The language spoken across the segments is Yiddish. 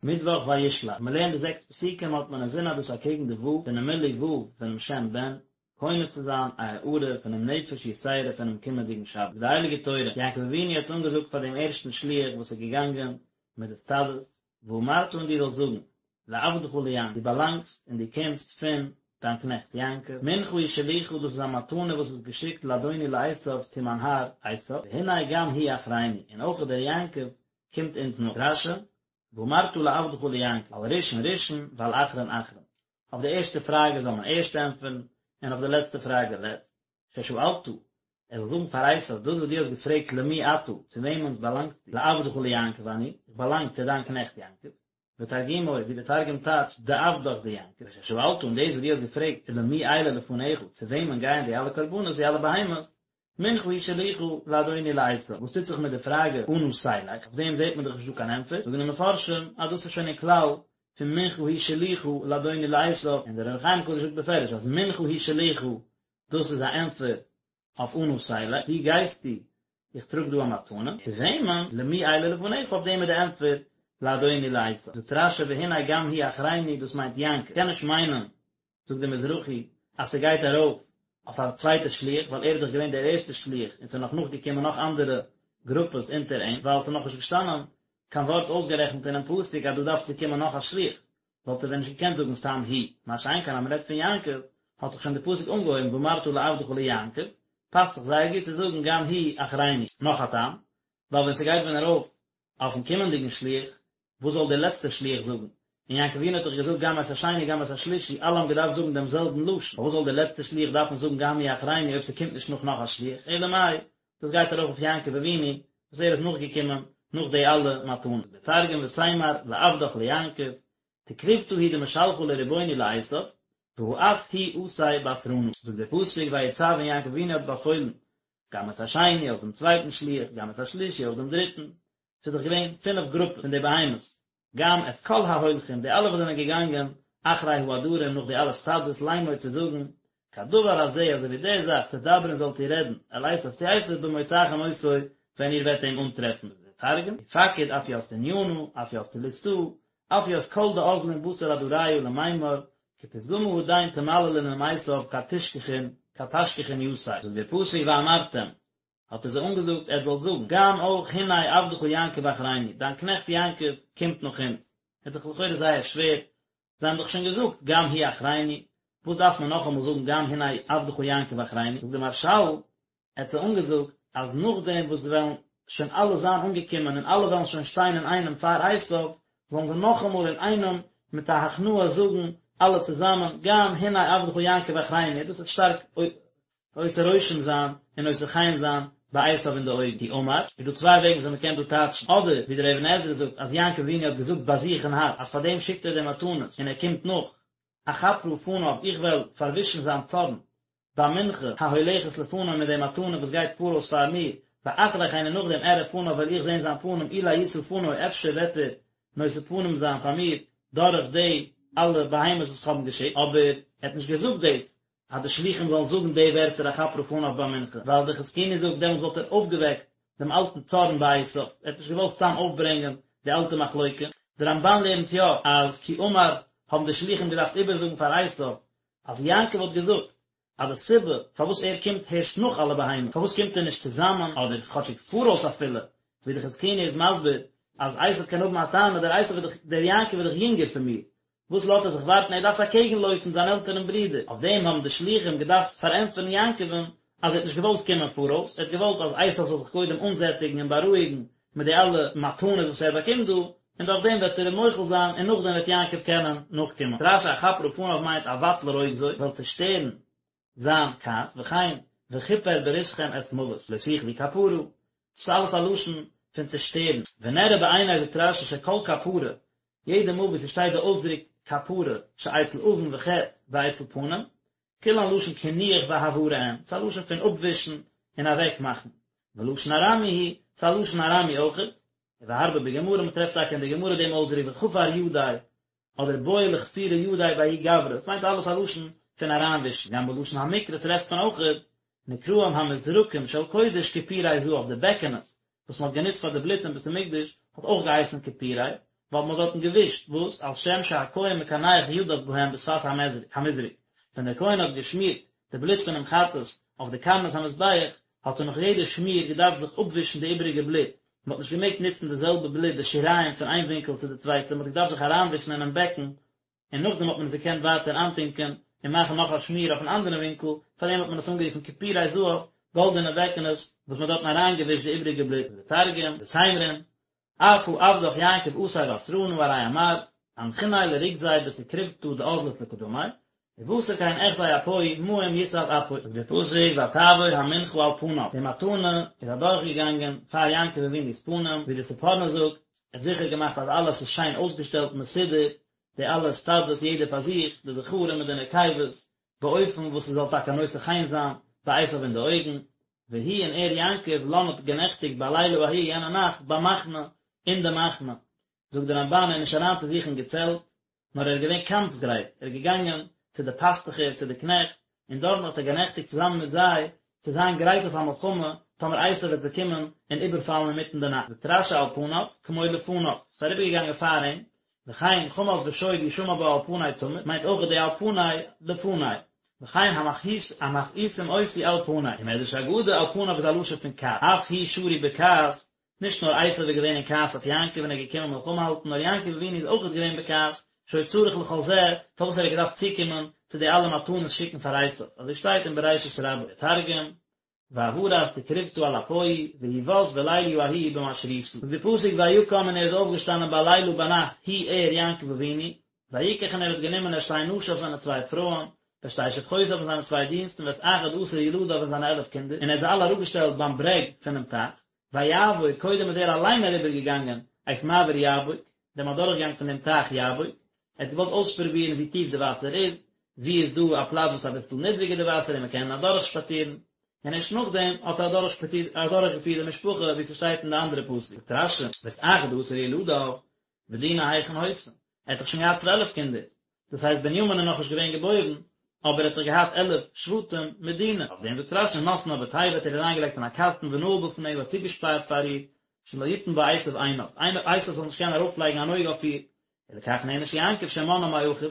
מיטוואך וישלח, מען לערנט די זעקס פסוקים האט מען אינזין אז דאס אקעגן די ו' פונעם מילוי ו' פונעם שם בן, קונה צו זיין א הארה פונעם נפש יתירה פונעם קומענדיגן שבת. די הייליגע תורה, יעקב אבינו האט אנגעזאגט פאר דעם ערשטן שליח וואס איז געגאנגען מיט די סטאדעס, ואמרת און דו זאלסט זאגן, לעבדך ליעקב, דו באלאנגסט און דו קומסט פון דיין קנעכט יעקב, מנחה היא שלוחה דאס איז א מתנה וואס איז געשיקט לאדוני לעשו צו מיין האר עשו, והנה גם הוא אחרינו, און אויך דער יעקב קומט אונז נאך. רש"י, ואמרת לעבדך ליעקב, על ראשון ראשון ועל אחרון אחרון. אויף די ערשטע פראגע זאל מען ערשט ענטפערן, און אויף די לעצטע פראגע לעצט. ששאלת, ער זאל זאגן פאר עשו, דאס וואס דו האסט געפרעגט למי אתה, צו וועמען באלאנגסטו, לעבדך ליעקב אני, איך באלאנג צו דיין קנעכט יעקב. ותרגומו, ווי דער תרגום טייטשט, דעבדך דיעקב. וששאלת, און דאס וואס דו האסט געפרעגט, ולמי אלה לפניך, צו וועמען גייען די אלע קרבנות, די אלע בהמות, מנחה היא שלוחה לאדוני לעשו, וואס טוט זיך מיט די פראגע אנה תלך, אויף דעם זעט מען דאך נישט דא קיין ענטפער, זאגן די מפרשים אז דאס איז שוין אין כלל פון מנחה היא שלוחה לאדוני לעשו, און דער אור החיים הקדוש זאגט בפירוש אז מנחה היא שלוחה דאס איז א ענטפער אויף אנה תלך, וואו גייסטו, איך טראג דא א מתנה, צו וועמען, למי אלה לפניך, אויף דעם איז די ענטפער לאדוני לעשו. זאגט רש"י והנה גם הוא אחרינו דאס מיינט יעקב, קען נישט מיינען זאגט דער מזרחי אז ס'גייט ארויף אויף א צווייטע שליח ווייל ער איז דאך געווען דער ערשטער שליח און ס'איז נאך נאכגעקומען נאך אנדערע גרופעס אונטער אים ווייל ס'איז נאכנישט געשטאנען קיין ווארט אויסגערעכנט אינעם פסוק אז דא דארף צו קומען נאך א שליח וואלט ער ווען נישט געקענט זאגן סתם הוא מה שאין כן אז מ'רעדט פון יעקב האט דאך שוין די פסוק אנגעהויבן ואמרת לעבדך ליעקב פאסט זיך זייער גוט צו זאגן גם הוא אחרינו. נאך א טעם ווייל ווען ס'גייט ווען ארויף אויפן קומענדיגן שליח וואס זאל דער לעצטער שליח זאגן? און יעקב אבינו האט דאך געזאגט גם את השני גם את השלישי, אלע האבן געדארפט זאגן דעם זעלבן לשון, פארוואס זאל דער לעצטער שליח דארפן זאגן גם הוא אחרינו אויב ס'קומט נישט נאך נאך א שליח? אלא מאי, דאס גייט ארויף אויף יעקב אבינו, וואס ער איז נאכגעקומען נאך די אלע מתנות. דער תרגום ותימר לעבדך ליעקב, תקרובתא היא דמשלחא לרבוני לעשו, והא אף הוא אתי בתרנא. זאגט דער פסוק ויצו און יעקב אבינו האט באפוילן גם את השני אויך דעם צווייטן שליח, גם את השלישי אויך דעם דריטן, ס'איז דאך געווען פינף גרופעס פון די בהמות, גם את כל ההולכים, די אלע וואס זענען געגאנגען אחרי העדרים נאך די אלע סטאדעס לאמור צו זאגן, כדבר הזה אזוי ווי די זאך תדברון זאלט איר רעדן, אל עשו צו עשו במוצאכם אותו ווען איר וועט אים אנטרעפן. דער תרגום, ופקיד אף ית תניינא, אף ית תליתאה, אף ית כל דאזלין בתר עדריא למימר, כפתגמא הדין תמללון עם עשו כד תשכחון כד תשכחון יתיה. זאגט דער פסוק ואמרתם, האט ער זיי אנגעזאגט, עטס זאלט זאגן, גם אויך הנה עבדך יעקב אחרינו, דיין קנעכט יעקב קומט נאך אונז. איז דאך לכאורה זייער שווער, זיי האבן דאך שוין געזאגט גם הוא אחרינו, וואס דארף מען נאכאמאל זאגן גם הנה עבדך יעקב אחרינו, זאגט דער מהרש"ל, ער האט זיי אנגעזאגט אז נאכדעם וואס זיי וועלן שוין אלע זיין אנגעקומען און אלע וועלן שוין שטיין אינאיינעם פאר עשיו, זאלן זיי נאכאמאל אינאיינעם מיט א הכנעה זאגן אלע צוזאמען גם הנה עבדך יעקב אחרינו, דאס וועט שטארק עושה רושם זיין און נושא חן זיין ביי עשיו אין די אויגן. כי אמר, איז דא צוויי וועגן וויאזוי מ'קען דא טייטשן, אדער ווי דער אבן עזרא זאגט אז יעקב אבינו האט געזאגט ביי זיך אין הארץ אז פאר דעם שיקט ער די מתנות און ער קומט נאך, אכפרה פניו איך וועל פארווישן זיין צארן במנחה ההולכת לפני מיט די מתנה וואס גייט פאראויס פאר מיר, ואחרי כן און נאכדעם אראה פניו וועל איך זען זיין פנים אולי ישא פני אפשר וועט ער נושא פנים זיין פאר מיר דורך די אלע בהמות וואס איך האב אים געשיקט, אבער ער האט נישט געזאגט דאס אז די שלוחים זאלן זאגן די ווערטער אכפרה פניו במנחה, ווייל דער חזקוני זאגט דעמאלטס וואלט ער אויפגעוועקט דעם אלטן צארן ביי עשיו, ער האט נישט געוואלט סתם אויפברענגען די אלטע מחלוקה. דער רמב"ן לערנט יא אז כי אמר האבן די שלוחים געדארפט איבערזאגן פאר עשיו אז יעקב האט געזאגט אז די סיבה פארוואס ער קומט הערשט נאך אלע בהמות, פארוואס קומט ער נישט צוזאמען אדער כאטשיג פאראויס אפילו, ווי די חזקוני איז מסביר אז עשיו קען האבן א טענה, דער עשיו איז דאך, דער יעקב איז דאך יונגער פון מיר, וואס לאזט ער זיך ווארטן, ער דארף אקעגן לויפן זיין עלטערן ברודער, אויף דעם האבן די שלוחים געדארפט פארענטפערן יעקב'ן אז ער האט נישט געוואלט קומען פאראויס, ער האט געוואלט אז עשיו זאל זיך קודם אנזעטיגן און בארואיגן מיט די אלע מתנות וואס ער באקומט דא, און דורך דעם וועט ער אים מוחל זיין און נאכדעם וועט יעקב קענען נאכקומען. רש"י אכפרה פניו מיינט אבטל רוגזו, וועל צעשטערן זיין כעס, וכן וכפר בריתכם את מות, לא תוכלו כפרה, דאס איז אלעס א לשון פון צעשטערן. ונראה בעיני זאגט רש"י שכל כפרה, יעדע מאל וואו ס'שטייט די אויסדרוק כפרה, שאצל עון וחטא ואצל פנים, כולן לשון קינוח והעברה הן, ס'איז א לשון פון אפווישן און אוועקמאכן. ולשון ארמי הוא, ס'איז א לשון ארמי אויכעט. והרבה בגמרא, מ'טרעפט טאקע אין די גמרא דעם אויסדרוק וכפר ידיה, אדער בעי לכפורי ידיה בההוא גברא, עס מיינט אלעס א לשון פון אריינווישן. גם בלשון המקרא טרעפט מען אויכעט, נקראים המזרקים של קודש כפורי זהב, די בעקענעס וואס מ'האט גענוצט פאר די בלוט אין בית המקדש האט אויך געהייסן כפורי. ווייל מען האט דארטן געווישט, וואס? על שם שהכהן מקנח ידיו בהם בשפת המזרק, ווען דער כהן האט געשמירט די בלוט פונעם חטאת אויף די קרנות המזבח, האט ער נאך יעדע שמיר געדארפט זיך אפווישן די איבעריגע בלוט, מען האט נישט געמעגט נוצן די זעלבע בלוט די שיריים פון איין ווינקל צו די צווייטע, מען האט געדארפט זיך אריינווישן אינעם בעקן, און נאכדעם האט מען עס געקענט ווייטער איינטונקען און מאכן נאך א שמיר אויפן אנדערן ווינקל, פארדעם האט מען עס אנגערופן כפורי זהב, גאלדענע בעקענעס, וואס מען האט דארטן אריינגעווישט די איבעריגע בלוט. ותרגום, ותימרון, אף הא עבדך יעקב אתיב אסרנא ארי אמר, אנחיניה לרוגזיה בתקרובתא דאזלת לקדמיה, ובתר כן אחזי אפוהי מים יסב אפוי. זאגט דער פסוק ותעבור המנחה על פניו, די מתנה איז אדורכגעגאנגען פאר יעקב אבינו'ס פנים, ווי די ספורנו זאגט, ער האט זיכער געמאכט אז אלעס איז שיין אויסגעשטעלט מסודר, די אלע סטאדעס יעדער פאר זיך, די זכרים מיט די נקבות, באופן וואס עס זאל טאקע נושא חן זיין ביי עשיו אין די אויגן, והוא און ער יעקב לן האט גענעכטיגט בלילה ההוא יענע נאכט במחנה, אין די מחנה. זאגט די רמבן ער איז נישט אריין צו זיך אין געצעלט, נאר ער איז געווען קאמפס גרייט, ער איז געגאנגען צו די פאסטוכער, צו די קנעכט, און דארטן האט ער גענעכטיגט צוזאמען מיט זיי, צו זיין גרייט אויף א מלחמה, טאמער עשיו וועט זיי קומען און איבערפאלן אינמיטן די נאכט. זאגט רשי על פניו, כמו לפניו, ס'איז אריבערגעגאנגען פאר אים, וכן חמס ושוד ישמע בה על פני תמיד, מיינט אויך די על פני לפני, וכן המכעיסים אותי על פני, ומדרש אגדה על פניו איז א לשון פון כעס, אף הוא שרוי בכעס, נישט נאר עשיו איז געווען אין כעס אויף יעקב און ער איז געקומען מלחמה האלטן, נאר יעקב אבינו איז אויכעט געווען בכעס, שהיה צריך לכל זה, פארוואס ער האט געדארפט צוקומען צו די אלע מתנות שיקן פאר עשיו, אזוי שטייט אין בראשית רבה, תרגום, ועברת תקרובתא על אפוהי, והוא בת בליליא ההוא במשריתא. זאגט די פסוק ויקם און ער איז אויפגעשטאנען בלילה ביינאכט הוא ער יעקב אבינו, ויקח און ער האט גענומען את שתי נשיו זיינע צוויי פרויען, ואת שתי שפחותיו און זיינע צוויי דינסטן ואת אחד עשר ילדיו און זיינע 11 קינדער, און ער האט זיי אלע אראפגעשטעלט ביים ברעג פונעם טייך, ויעבור, קודם איז ער אליין אריבער געגאנגען את מעבר יבוק, דעם אדורכגאנג פון דעם טייך יבוק, ער האט געוואלט אויספרובירן ווי טיף די וואסער איז, וואו איז דא א פלאץ וואס איז אביסל נידריגער די וואסער און מען קען אדורך שפאצירן, און ערשט נאכדעם האט ער אדורך שפאצירט אדורך געפירט די משפחה ווי ס'שטייט אין די אנדערע פסוק, זאגט רשי, ואת אחד עשר ילדיו, ודינה היכן היתה, ער האט דאך שוין געהאט 12 קינדער, דאס הייסט בנימין איז נאכנישט געווען געבוירן, אבער ער האט דאך געהאט 11 שבטים מיט דינה, אויף דעם זאגט רשי נתנה בתיבה האט ער איר אריינגעלייגט אין א קאסטן ונעל בפניה האט צוגעשפארט פאר איר, שלא יתן בה עשו עיניו, עשו זאל נישט קענען ארויפלייגן אן אויג אויף איר, ולכך נענש יעקב שמנעה מאחיו,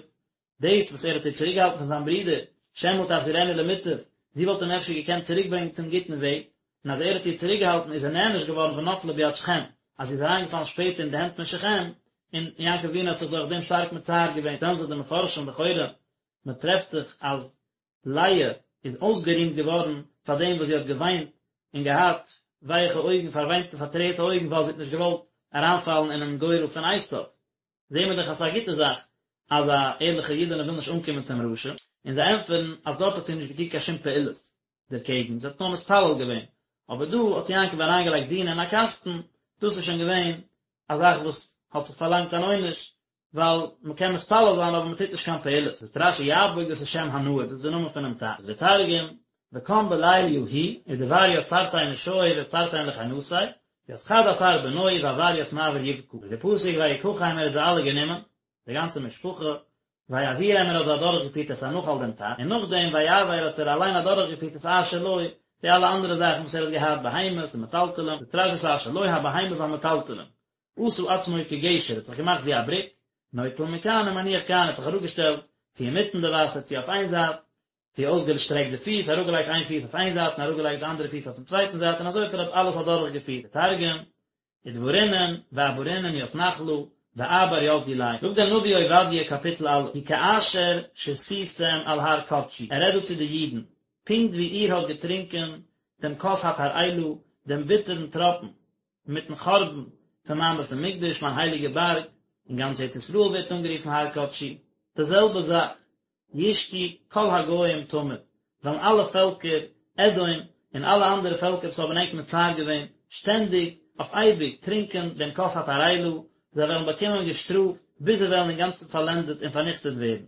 דאס וואס ער האט איר צוריקגעהאלטן פון זיין ברודער, שמא תחזירנו למוטב, זי וואלט אים אפשר געקענט צוריקברענגען צום גוטן וועג, און אז ער האט איר צוריקגעהאלטן איז ער נענש געווארן ונפלה ביד שכם, אז זי איז אריינגעפאלן שפעטער אין די הענט פון שכם, און יעקב אבינו האט זיך דורך דעם שטארק מצער געווען, שטעלן זיך די מפרשים לכאורה, מען טרעפט דאך אז לאה איז אויסגערימט געווארן פאר דעם וואס זי האט געוויינט און געהאט ווייכע אויגן, פארוויינטע פארטרערטע אויגן ווייל זי האט נישט געוואלט אריינפאלן אינעם גורל פון עשיו. זעהן מיר דאך אז ס'איז א גוטע זאך אז א ערליכע אידענע וויל נישט אנקומען צום רשע, און זיי ענטפערן אז דארט האט זי נישט געטון קיין שום פעולות דערקעגן, זי האט נאר מתפלל געווען, אבער דא האט יעקב אריינגעלייגט דינה אין א קאסטן, דאס איז שוין געווען א זאך וואס האט זיך פארלאנגט אן עונש, ווייל מען קען מתפלל זיין אבער מען טוט נישט קיין פעולות. זאגט רשי יבוק דאס איז שם הנהר, דאס איז די נאמען פונעם טייך. זאגט דער תרגום, וקם בליליא הוא, ודבר ית תרתין נשוי וית תרתין לכינתיה, ית חד עשר בנוי ועבר ית מעבר יבקא, זאגט דער פסוק ויקחם ער האט זיי אלע גענומען, די גאנצע משפחה, ויעבירם ער האט זיי אדורכגעפירט את הנחל דעם טייך, און נאכדעם ויעבר האט ער אליין אדורכגעפירט את אשר לו, די אלע אנדערע זאכן וואס ער האט געהאט, בהמות און מטלטלים, זאגט רשי את אשר לו הבהמה והמטלטלים, עשה עצמו כגשר, האט זיך געמאכט ווי א בריק, נוטל מכאן ומניח כאן, האט זיך אראפגעשטעלט, צו אינמיטן די וואסער צו אויף איין זייט, צו אויסגעשטרעקט די פיס, אראפגעלייגט איין פיס אויף איין זייט און אראפגעלייגט די אנדערע פיס אויפן צווייטן זייט און אזוי האט ער אלעס אדורכגעפירט, די תרגום, ודברינון ואעברינון ית נחלא ואעבר ית דיליה. זאגט דער נביא עובדיה קאפיטל א', כי כאשר שתיתם על הר קדשי, ער רעדט דא צו די אידן, פונקט ווי איר האט געטרונקען דעם כוס התרעלה, דעם ביטערן טראפן, מיטן חורבן פון מיין בית המקדש, מיין הייליגע בארג, און גאנץ ארץ ישראל ווערט אנגערופן הר קדשי, די זעלבע זאך, ישתו כל הגוים תמיד, וועלן אלע פעלקער, אדום און אלע אנדערע פעלקער וואס האבן ענק מצער געווען, שטענדיג, אויף אייביג, טרינקען דעם כוס התרעלה, זיי וועלן באקומען געשטראפט, ביז זיי וועלן אינגאנצן פארלענדעט און פארניכטעט ווערן.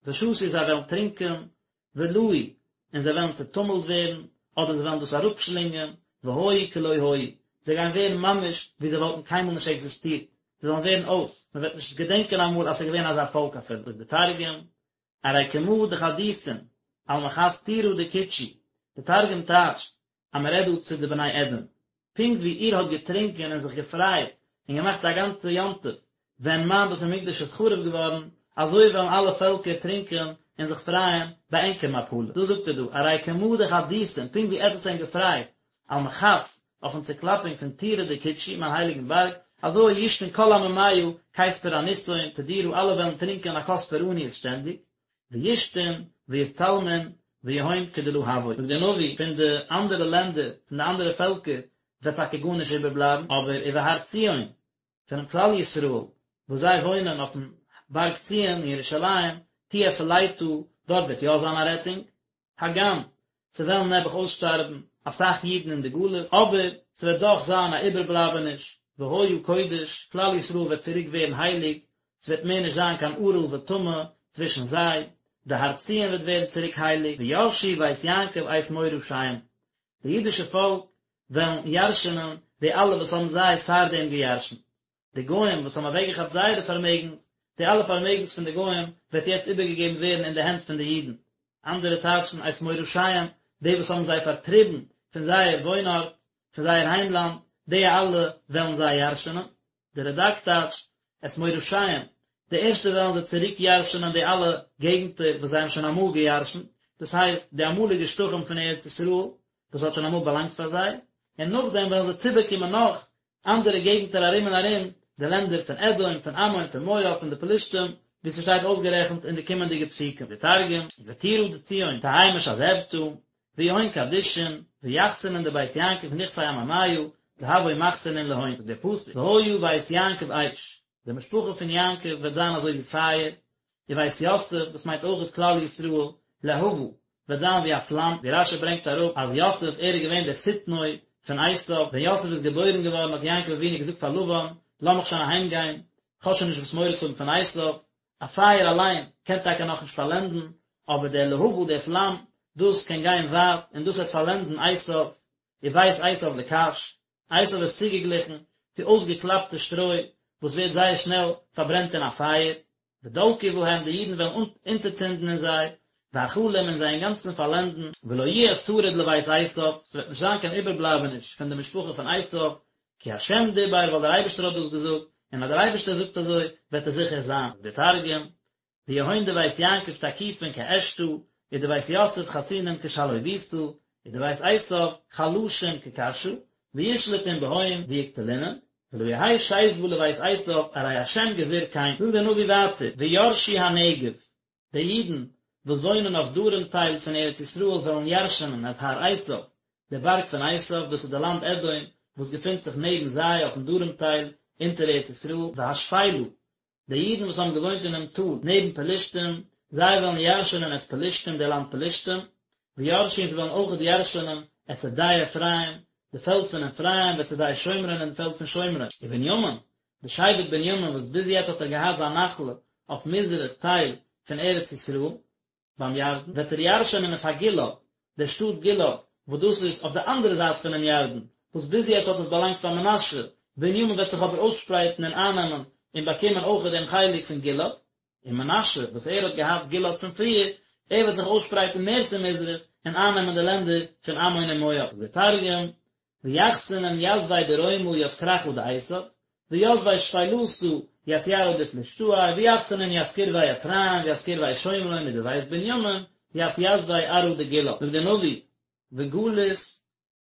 ושתו זיי וועלן טרינקען, ולעו, און זיי וועלן צעטומלט ווערן, אדער זיי וועלן דאס אראפשלינגען, והיו כלא היו, זיי גייען ווערן ממש ווי זיי וואלטן קיינמאל נישט עקזיסטירט, זיי וועלן ווערן אויס, מען וועט נישט געדענקען אמאל אז ס'איז געווען אזא פאלק אפילו. זאגט דער תרגום, ארי כמא דחדיתון על מחת טורא דקודשי, דער תרגום טייטשט אז מען רעדט דא צו די בני אדום, פונקט ווי איר האט געטרינקען און זיך געפרייט און געמאכט א גאנצע יום טוב. ווען מיין בית המקדש איז חרוב געווארן, אזוי וועלן אלע פעלקער טרינקען און זיך פרייען ביי ענקער מפלה. דאס זאגט ער דא, ארי כמה דחדיתון, פונקט ווי עטץ ענק געפרייט על מחת אויפן צוקלאפונג פון טורא דקודשי, מיין הייליגן בארג, אזוי ישתון כל עממיא כיס פורענותהון תדירא אלע וועלן טרינקען א כוס פורעניות שטענדיג, וישתון ויתתלמון ויהון כדלא הוו. זאגט דער נביא, פון די אנדערע לענדער, פון די אנדערע פעלקער, וועט טאקע גארנישט איבערבלייבן, אבער ובהר ציון, פונעם כלל ישראל, וואס זיי וואוינען אויפן בארג ציון אין ירושלים, תהיה פליטה, דארט וועט יא זיין א רעטונג, הגם ס'וועלן נעבעך אויסשטארבן אסאך אידן אין די גלות, אבער ס'וועט דאך זיין א איבערבלייבעניש, והיה קודש, כלל ישראל וועט צוריק ווערן הייליג, ס'וועט מער נישט זיין קיין ערל וטמא צווישן זיי, די הר ציון וועט ווערן צוריק הייליג, וירשו בית יעקב את מורשיהם, די אידישע פאלק וועלן ירש'נען די אלע וואס האבן זיי פארדעם געירש'נט. די גוים וואס האבן אוועקגעכאפט זייערע פארמעגנס, די אלע פארמעגנס פון די גוים וועט יעצט איבערגעגעבן ווערן אין די הענט פון די אידן. אנדערע טייטשן את מורשיהם, די וואס האבן זיי פארטריבן פון זייער וואוינארט, פון זייער היימלאנד, די אלע וועלן זיי ירש'נען. דער רד"ק טייטשט את מורשיהם, די ערשטע וועלן זיי צוריק ירש'נען די אלע געגנטער וואס זיי האבן שוין אמאל געירש'נט, דאס הייסט די אמאליגע שטחים פון ארץ ישראל וואס האט שוין אמאל באלאנגט פאר זיי, און נאכדעם וועלן זיי צובאקומען נאך אנדערע געגנטער ארום און ארום, די לענדער פון אדום, פון עמון, פון מואב, פון די פלישתים, ווי ס'שטייט אויסגערעכנט אין די קומענדיגע פסוקים. די תרגום, וטורא דציון תהי משזבתא, ויהון קדישין, ויחסנון דבית יעקב נכסי עממיא, דהוו מחסנין להון, זאגט דער פסוק, והיה בית יעקב אש, די משפחה פון יעקב וועט זיין אזוי ווי פייער, ובית יוסף, דאס מיינט אויכעט כלל ישראל, להבה, וועט זיין ווי א פלאם, ווי רש"י ברענגט אראפ אז יוסף ער איז געווען דער שטנו פון עשיו, ווען יוסף איז געבוירן געווארן האט יעקב אבינו געזאגט פאר לבן, לאמיך שוין אהיים גיין, כ'האב שוין נישט וואס מורא צו האבן פון עשיו, א פייער אליין קען טאקע נאכנישט פארלענדן, אבער דער להבה, דער פלאם, דאס קען גיין ווייט, און דאס וועט פארלענדן עשיו, ובית עשיו לקש, עשיו איז צוגעגליכן צו אויסגעקלאפטע שטרוי וואס ווערט זייער שנעל פארברענט אין א פייער, ודלקו בהם, די אידן וועלן אונטערצינדן אין זיי, ואכלום און זיי אינגאנצן פארלענדן, ולא יהיה שריד לבית עשיו, ס'וועט נישט זיין קיין איבערבלייבעניש פון די משפחה פון עשיו, כי השם דיבר, ווייל דער אייבערשטער האט דאס געזאגט, און אז דער אייבערשטער זאגט אזוי, וועט עס זיכער זיין. דער תרגום, ויהון דבית יעקב תקיפין כעשתא, ודבית יוסף חסינין כשלהוביתא, ודבית עשיו חלשין כקשא, וישלטון בהון ויקטלינון, ולא יהא שיזבא לבית עשיו ארי השם גזיר כן. זאגט דער נביא ווייטער, וירשו הנגב, די אידן וואס וואוינען אויף דרום טייל פון ארץ ישראל וועלן ירש'נען את הר עשיו, די בארג פון עשיו, דאס איז די לאנד אדום וואס געפינט זיך נעבן זיי אויפן דרום טייל אונטער ארץ ישראל, והשפלה, די אידן וואס האבן געוואוינט אינעם טאל נעבן פלשתים, זיי וועלן ירש'נען את פלשתים, די לאנד פלשתים, וירשו און זיי וועלן אויכעט ירש'נען את שדה אפרים, די פעלד פון אפרים, ואת שדה שומרון און די פעלד פון שומרון. ובנימין, די שבט בנימין וואס ביז יעצט האט ער געהאט זיין נחלה אויף מזרח טייל פון ארץ ישראל, ביים ירדן, וועט ער ירשענען את הגלעד, דער שטאט גלעד, וואס דאס איז אויף די אנדערע זייט פונעם ירדן, וואס ביז יעצט האט עס באלאנגט פאר מנשה, בנימין וועט זיך אבער אויסשפרייטן און אייננעמען און באקומען אויך דעם חלק פון גלעד, און מנשה, וואס ער האט געהאט גלעד פון פריער, ער וועט זיך אויסשפרייטן מער צו מזרח און אייננעמען די לענדער פון עמון און מואב. זאגט דער תרגום, ויחסנון יתבי דרומא ית כרכא דעשו, ויתבי שפלתא ית ירעא דפלשתאי, ויחסנון ית קרוי אפרים וית קרוי שומרון ודבית בנימין ית יתבי ארעא דגלעד, זאגט דער נביא, וגלות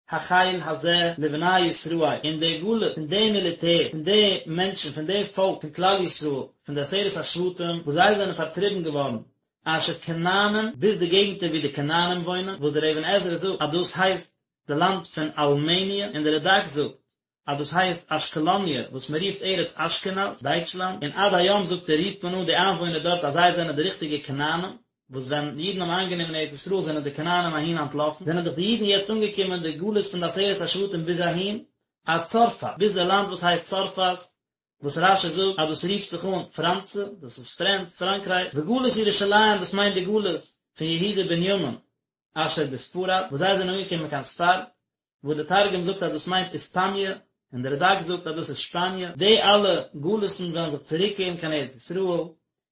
החיל הזה לבני ישראל, און די גלות פון די מיליטער, פון די מענטשן, פון די פאלק, פון כלל ישראל, פון די עשרת השבטים, וואס זיי זענען פארטריבן געווארן, אשר כנענים, ביז די געגנטער וואו די כנענים וואוינען, וואס דער אבן עזרא זאגט אז דאס הייסט די לאנד פון אלמעניע, און דער רד"ק זאגט אז דאס הייסט אשקלוניה וואס מען רופט ארץ אשכנז, דייטשלאנד, און עד היום זאגט ער רופט מען אן די איינוואוינער דארט אז זיי זענען די ריכטיגע כנענים, וואס ווען אידן האבן איינגענומען ארץ ישראל זענען די כנענים אהין אנטלאפן, זענען דאך די אידן יעצט אנגעקומען די גלות פון די עשרת השבטים ביז אהין, עד צרפת, ביז די לאנד וואס הייסט צרפת, וואס רש"י זאגט אז דאס רופט זיך אן פראנצע, דאס איז פרענץ, פראנקרייך, וגלות ירושלים דאס מיינט די גלות פון יהודה בנימין, אשר בספרד, וואס זיי זענען אנגעקומען קיין ספרד, וואס די תרגום זאגט אז דאס מיינט איספאניע, און די רד"ק זאגט אז דאס איז שפאניע, די אלע גלות'ן וועלן זיך צוריקקערן קיין ארץ ישראל,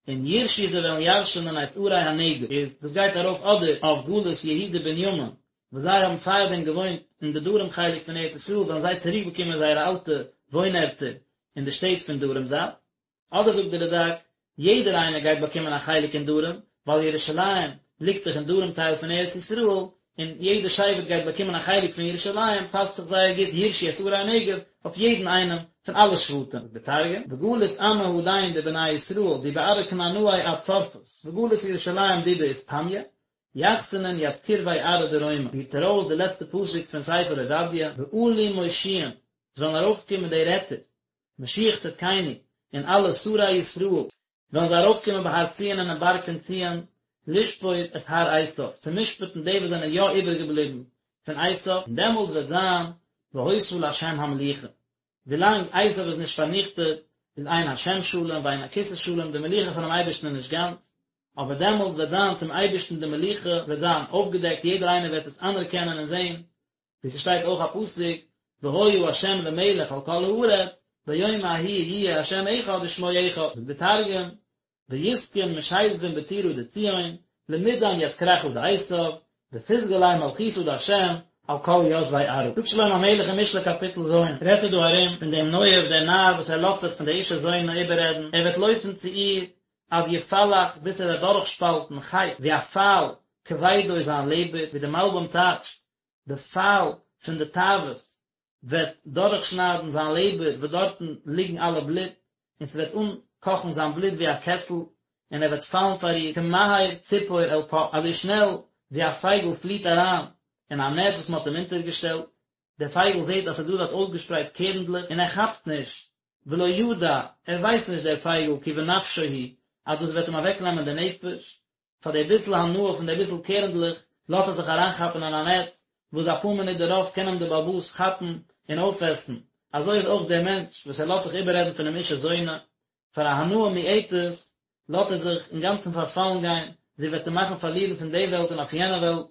און יירשו זיי וועלן ירש'נען את ערי הנגב, איז דאס גייט ארויף אדער אויף גלות יהודה בנימין, וואס זיי האבן פארדעם געוואוינט אין די דרום חלק פון ארץ ישראל, וועלן זיי צוריקבאקומען זייערע אלטע וואוינערטער אין די שטעט פון דרום זייט. אדער זאגט דער רד"ק, יעדער איינער גייט באקומען א חלק אין דרום, ווייל ירושלים ליגט דאך אין דרום טייל פון ארץ ישראל, און יעדער שבט גייט באקומען א חלק פון ירושלים, פאסט זיך זייער גוט יירשו את ערי הנגב אויף יעדן איינעם פון אלע שבטים. זאגט דער תרגום, וגלית עמא הדין דבני ישראל די בארעא כנענאי עד צרפת, וגלית ירושלים דידא אתפניא, יחסנון ית קרוי ארעא דרומא, פירט ער אויס די לעצטע פסוק פון ספר עובדיה, ועלו מושיעין, עס וועלן ארויפקומען די רעטער, משיח צדקינו, און אלע שרי ישראל, וועלן זיי ארויפקומען בהר ציון אינעם בארג פון ציון, לשפוט את הר עשיו, צו משפט'ן די וואס זענען יא איבערגעבליבן פון עשיו, און דעמאלטס וועט זיין והיתה לה' המלוכה. ווילאנג עשיו איז נישט פארניכטעט, איז אין השם שלם ואין הכסא שלם, די מלוכה פונעם אייבערשטן איז נישט גאנץ, אבער דעמאלטס וועט זיין צום אייבערשטן די מלוכה וועט זיין אויפגעדעקט, יעדער איינער וועט עס אנערקענען און זען, ווי ס'שטייט אויך א פסוק, והיה ה' למלך על כל הארץ, ביום ההוא יהיה השם אחד ושמו אחד, זאגט דער תרגום, ויתקון משיזבין בטורא דציון, למידן ית כרכא דעשיו, ותתגלי מלכותא דהשם על כל יתבי ארעא. זאגט שלמה המלך אין משלי קאפיטל ז', רעדט ער דא ארום פון דעם נואף דער נאר וואס ער לאזט זיך פון דער אישה זונה איבעררעדן, ער וועט לויפן צו איר עד יפלח ביז ער וועט דורכשפאלטן חץ ווי א פייל כבדו זיין לעבער, ווי דער מלבים טייטשט, די פייל פון די תאוות וועט דורכשניידן זיין לעבער וואס דארטן ליגן אלע בלוט, און ס'וועט אנקאכן זיין בלוט ווי א קעסל, און ער וועט פאלן פאר איר, כמהר ציפור אל פח, אזוי שנעל ווי א פייגל פליט אריין אין א נעץ וואס מ'האט אים אונטערגעשטעלט, דער פייגל זעט אז ס'איז דא דארט אויסגעשפרייט קערנדלעך, און ער כאפט נישט, ולא ידע, ער ווייסט נישט דער פייגל, כי בנפשו הוא, אז דאס וועט אים אוועקנעמען די נפש, פאר די ביסל הנאה פון די ביסל קערנדלעך לאזט ער זיך אריינכאפן אין א נעץ, וואס אפאר מינוט דערויף קען אים דער בעל הבית כאפן און אויפעסן, אזוי איז אויך דער מענטש וואס ער לאזט זיך איבעררעדן פונעם אישה זונה, פאר א הנאה מועטת לאזט ער זיך אינגאנצן פארפאלן גיין, זי וועט אים מאכן פארלירן פון די וועלט און אויף יענע וועלט.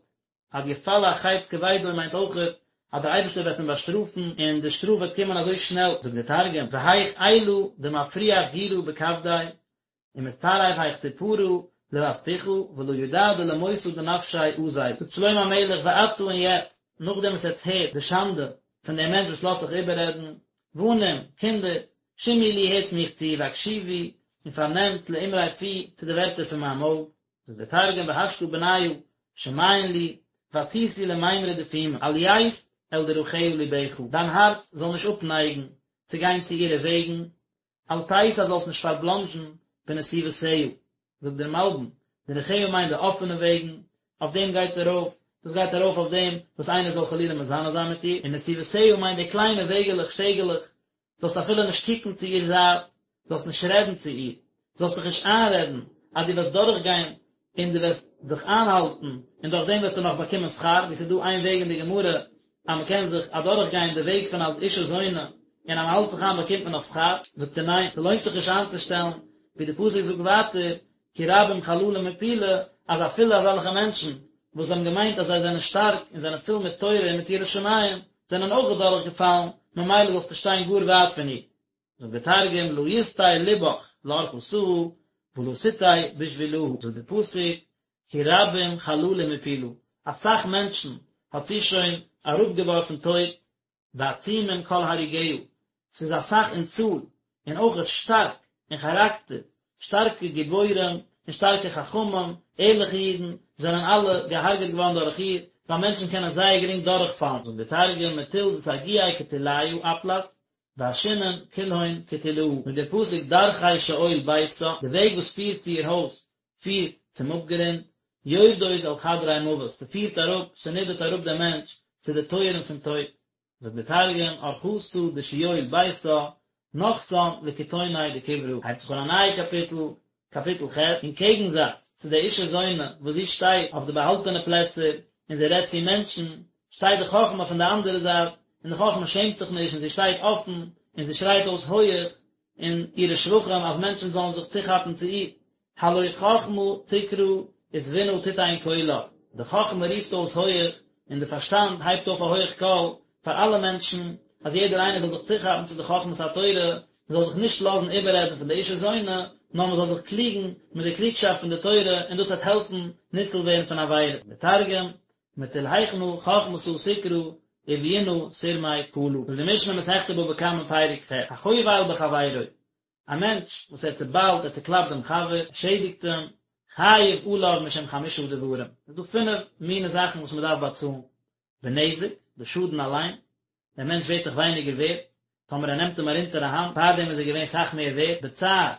עד יפלח חץ כבדו מיינט אויכעט אז דער אייבערשטער וועט אים באשטראפן און די שטראף וועט קומען אזוי שנעל, זאגט דער תרגום, והיך אילא דמפריח גירא בכבדיה, ומתטרף היך צפרא לבת פוחא ולא ידע דלמותא דנפשיה אזיל. זאגט שלמה המלך ועתה און יעצט, נאכדעם וואס עטס הערט די שאנדע פון דעם מענטש וואס לאזט זיך איבעררעדן, בנים, קינדער, שמעו לי הערטס מיך צו, והקשיבו, און פארנעמט לאמרי פי, צו די ווערטער פון מיין מויל. זאגט דער תרגום והשתא בניא, שמעון לי, ועתיתו למימרא דפומא, אל ית אל דרכיה לבך, דיין הארץ זאל נישט אפנייגן צו גיין צו אירע וועגן, אל תסט זאלסט נישט פארבלאנדזשן בנתיבותיה, זאגט דער מלבים, דרכיה מיינט די אפענע וועגן, אויף דעם גייט ארויף, דאס גייט ארויף אויף דעם וואס איינער זאל חלילה מזנה זיין מיט איר, און נתיבותיה מיינט די קליינע וועגעלעך, שטעגעלעך, זאלסט אפילו נישט קוקן צו איר זייט, זאלסט נישט רעדן צו איר, זאלסט דיך נישט איינרעדן אז דו וועסט דורכגיין און דו וועסט זיך איינהאלטן און דורך דעם וועסטו נאך באקומען שכר, ווי ס'איז דא איין וועג אין די גמרא אז מ'קען זיך אדורכגיין די וועג פון א אישה זונה און אז מ'האלט זיך איין באקומט מען נאך שכר, זאגט ער ניין, ס'לוינט זיך נישט איינצושטעלן, ווי די פסוק זאגט ווייטער, כי רבים חללים הפילה, אז אפילו אזעלכע מענטשן וואס האבן געמיינט אז זיי זענען שטארק און זענען פול מיט תורה און מיט יראת שמים, זענען אויך אדורכגעפאלן, ממילא זאלסטו שטיין גאר ווייט פון איר. זאגט דער תרגום לא יסטי לבך לארחתהא ולא תטעי בשבילהא, זאגט דער פסוק כי רבים חללים הפילה, אסאך מענטשן האט זי שוין אראפגעווארפן טויט, ועצומים כל הרוגיה, ס'איז אסאך אין צאל, און אויכעט שטארק אין כאראקטער, שטארקע גיבורים און שטארקע חכמים, ערליכע אידן, זענען אלע געהארגעט געווארן דורך איר, ווייל מענטשן קענען זייער גרינג דורכפאלן, זאגט דער תרגום מטול דסגיאי קטיליא אפלת, ועשינן כלהון קטילאה, זאגט דער פסוק דרכי שאול ביתה, די וועג וואס פירט צו איר הויז פירט צום אפגרונד, יורדות אל חדרי מוות, ס'פירט אראפ, ס'נידערט אראפ דעם מענטש צו די טויערן פון טויט, זאגט דער תרגום, ארחתא דשיול ביתה, נחתן לקיתוני דקברא. הייבט זיך אן א נייע קאפיטל, קאפיטל ח', אין קעגנזאץ צו די אישה זונה וואס זי שטייט אויף די באהאלטענע פלעצער און זי רעדט צו מענטשן, שטייט די חכמה פון די אנדערע זייט, און די חכמה שעמט זיך נישט און זי שטייט אפן און זי שרייט אויס הויעך אין אירע שבחים אז מענטשן זאלן זיך צוכאפן צו איר. הלא חכמה תקרא ותבונה תתן קולה, די חכמה רופט אויס הויעך און די פארשטאנד הייבט אויף א הויעך קול פאר אלע מענטשן, אז יעדער איינער זאל זיך צוכאפן צו די חכמת התורה, מען זאל זיך נישט לאזן איבעררעדן פון די אישה זונה, נאר מען זאל זיך קליגן מיט די קלוגשאפט פון די תורה און דאס וועט העלפן ניצול ווערן פון עבירות. דער תרגום, מטול היכנא חכמתא תקרא וביונא תרמי קלא. זאגט די משנה מסכת בבא קמא פרק ח', החובל בחבירו. א מענטש וואס ער צעביילט, ער צעקלאפט דעם חבר, ער שעדיגט אים, חייב עליו משום חמשה דברים, עס איז דא פינף מיני זאכן וואס מען דארף באצאלן, בנזק, די שאדן אליין, דער מענטש ווערט דאך ווייניגער ווערט, טאמער ער נעמט אים ארונטער א האנט, פארדעם איז ער געווען סאך מער ווערט, בצער,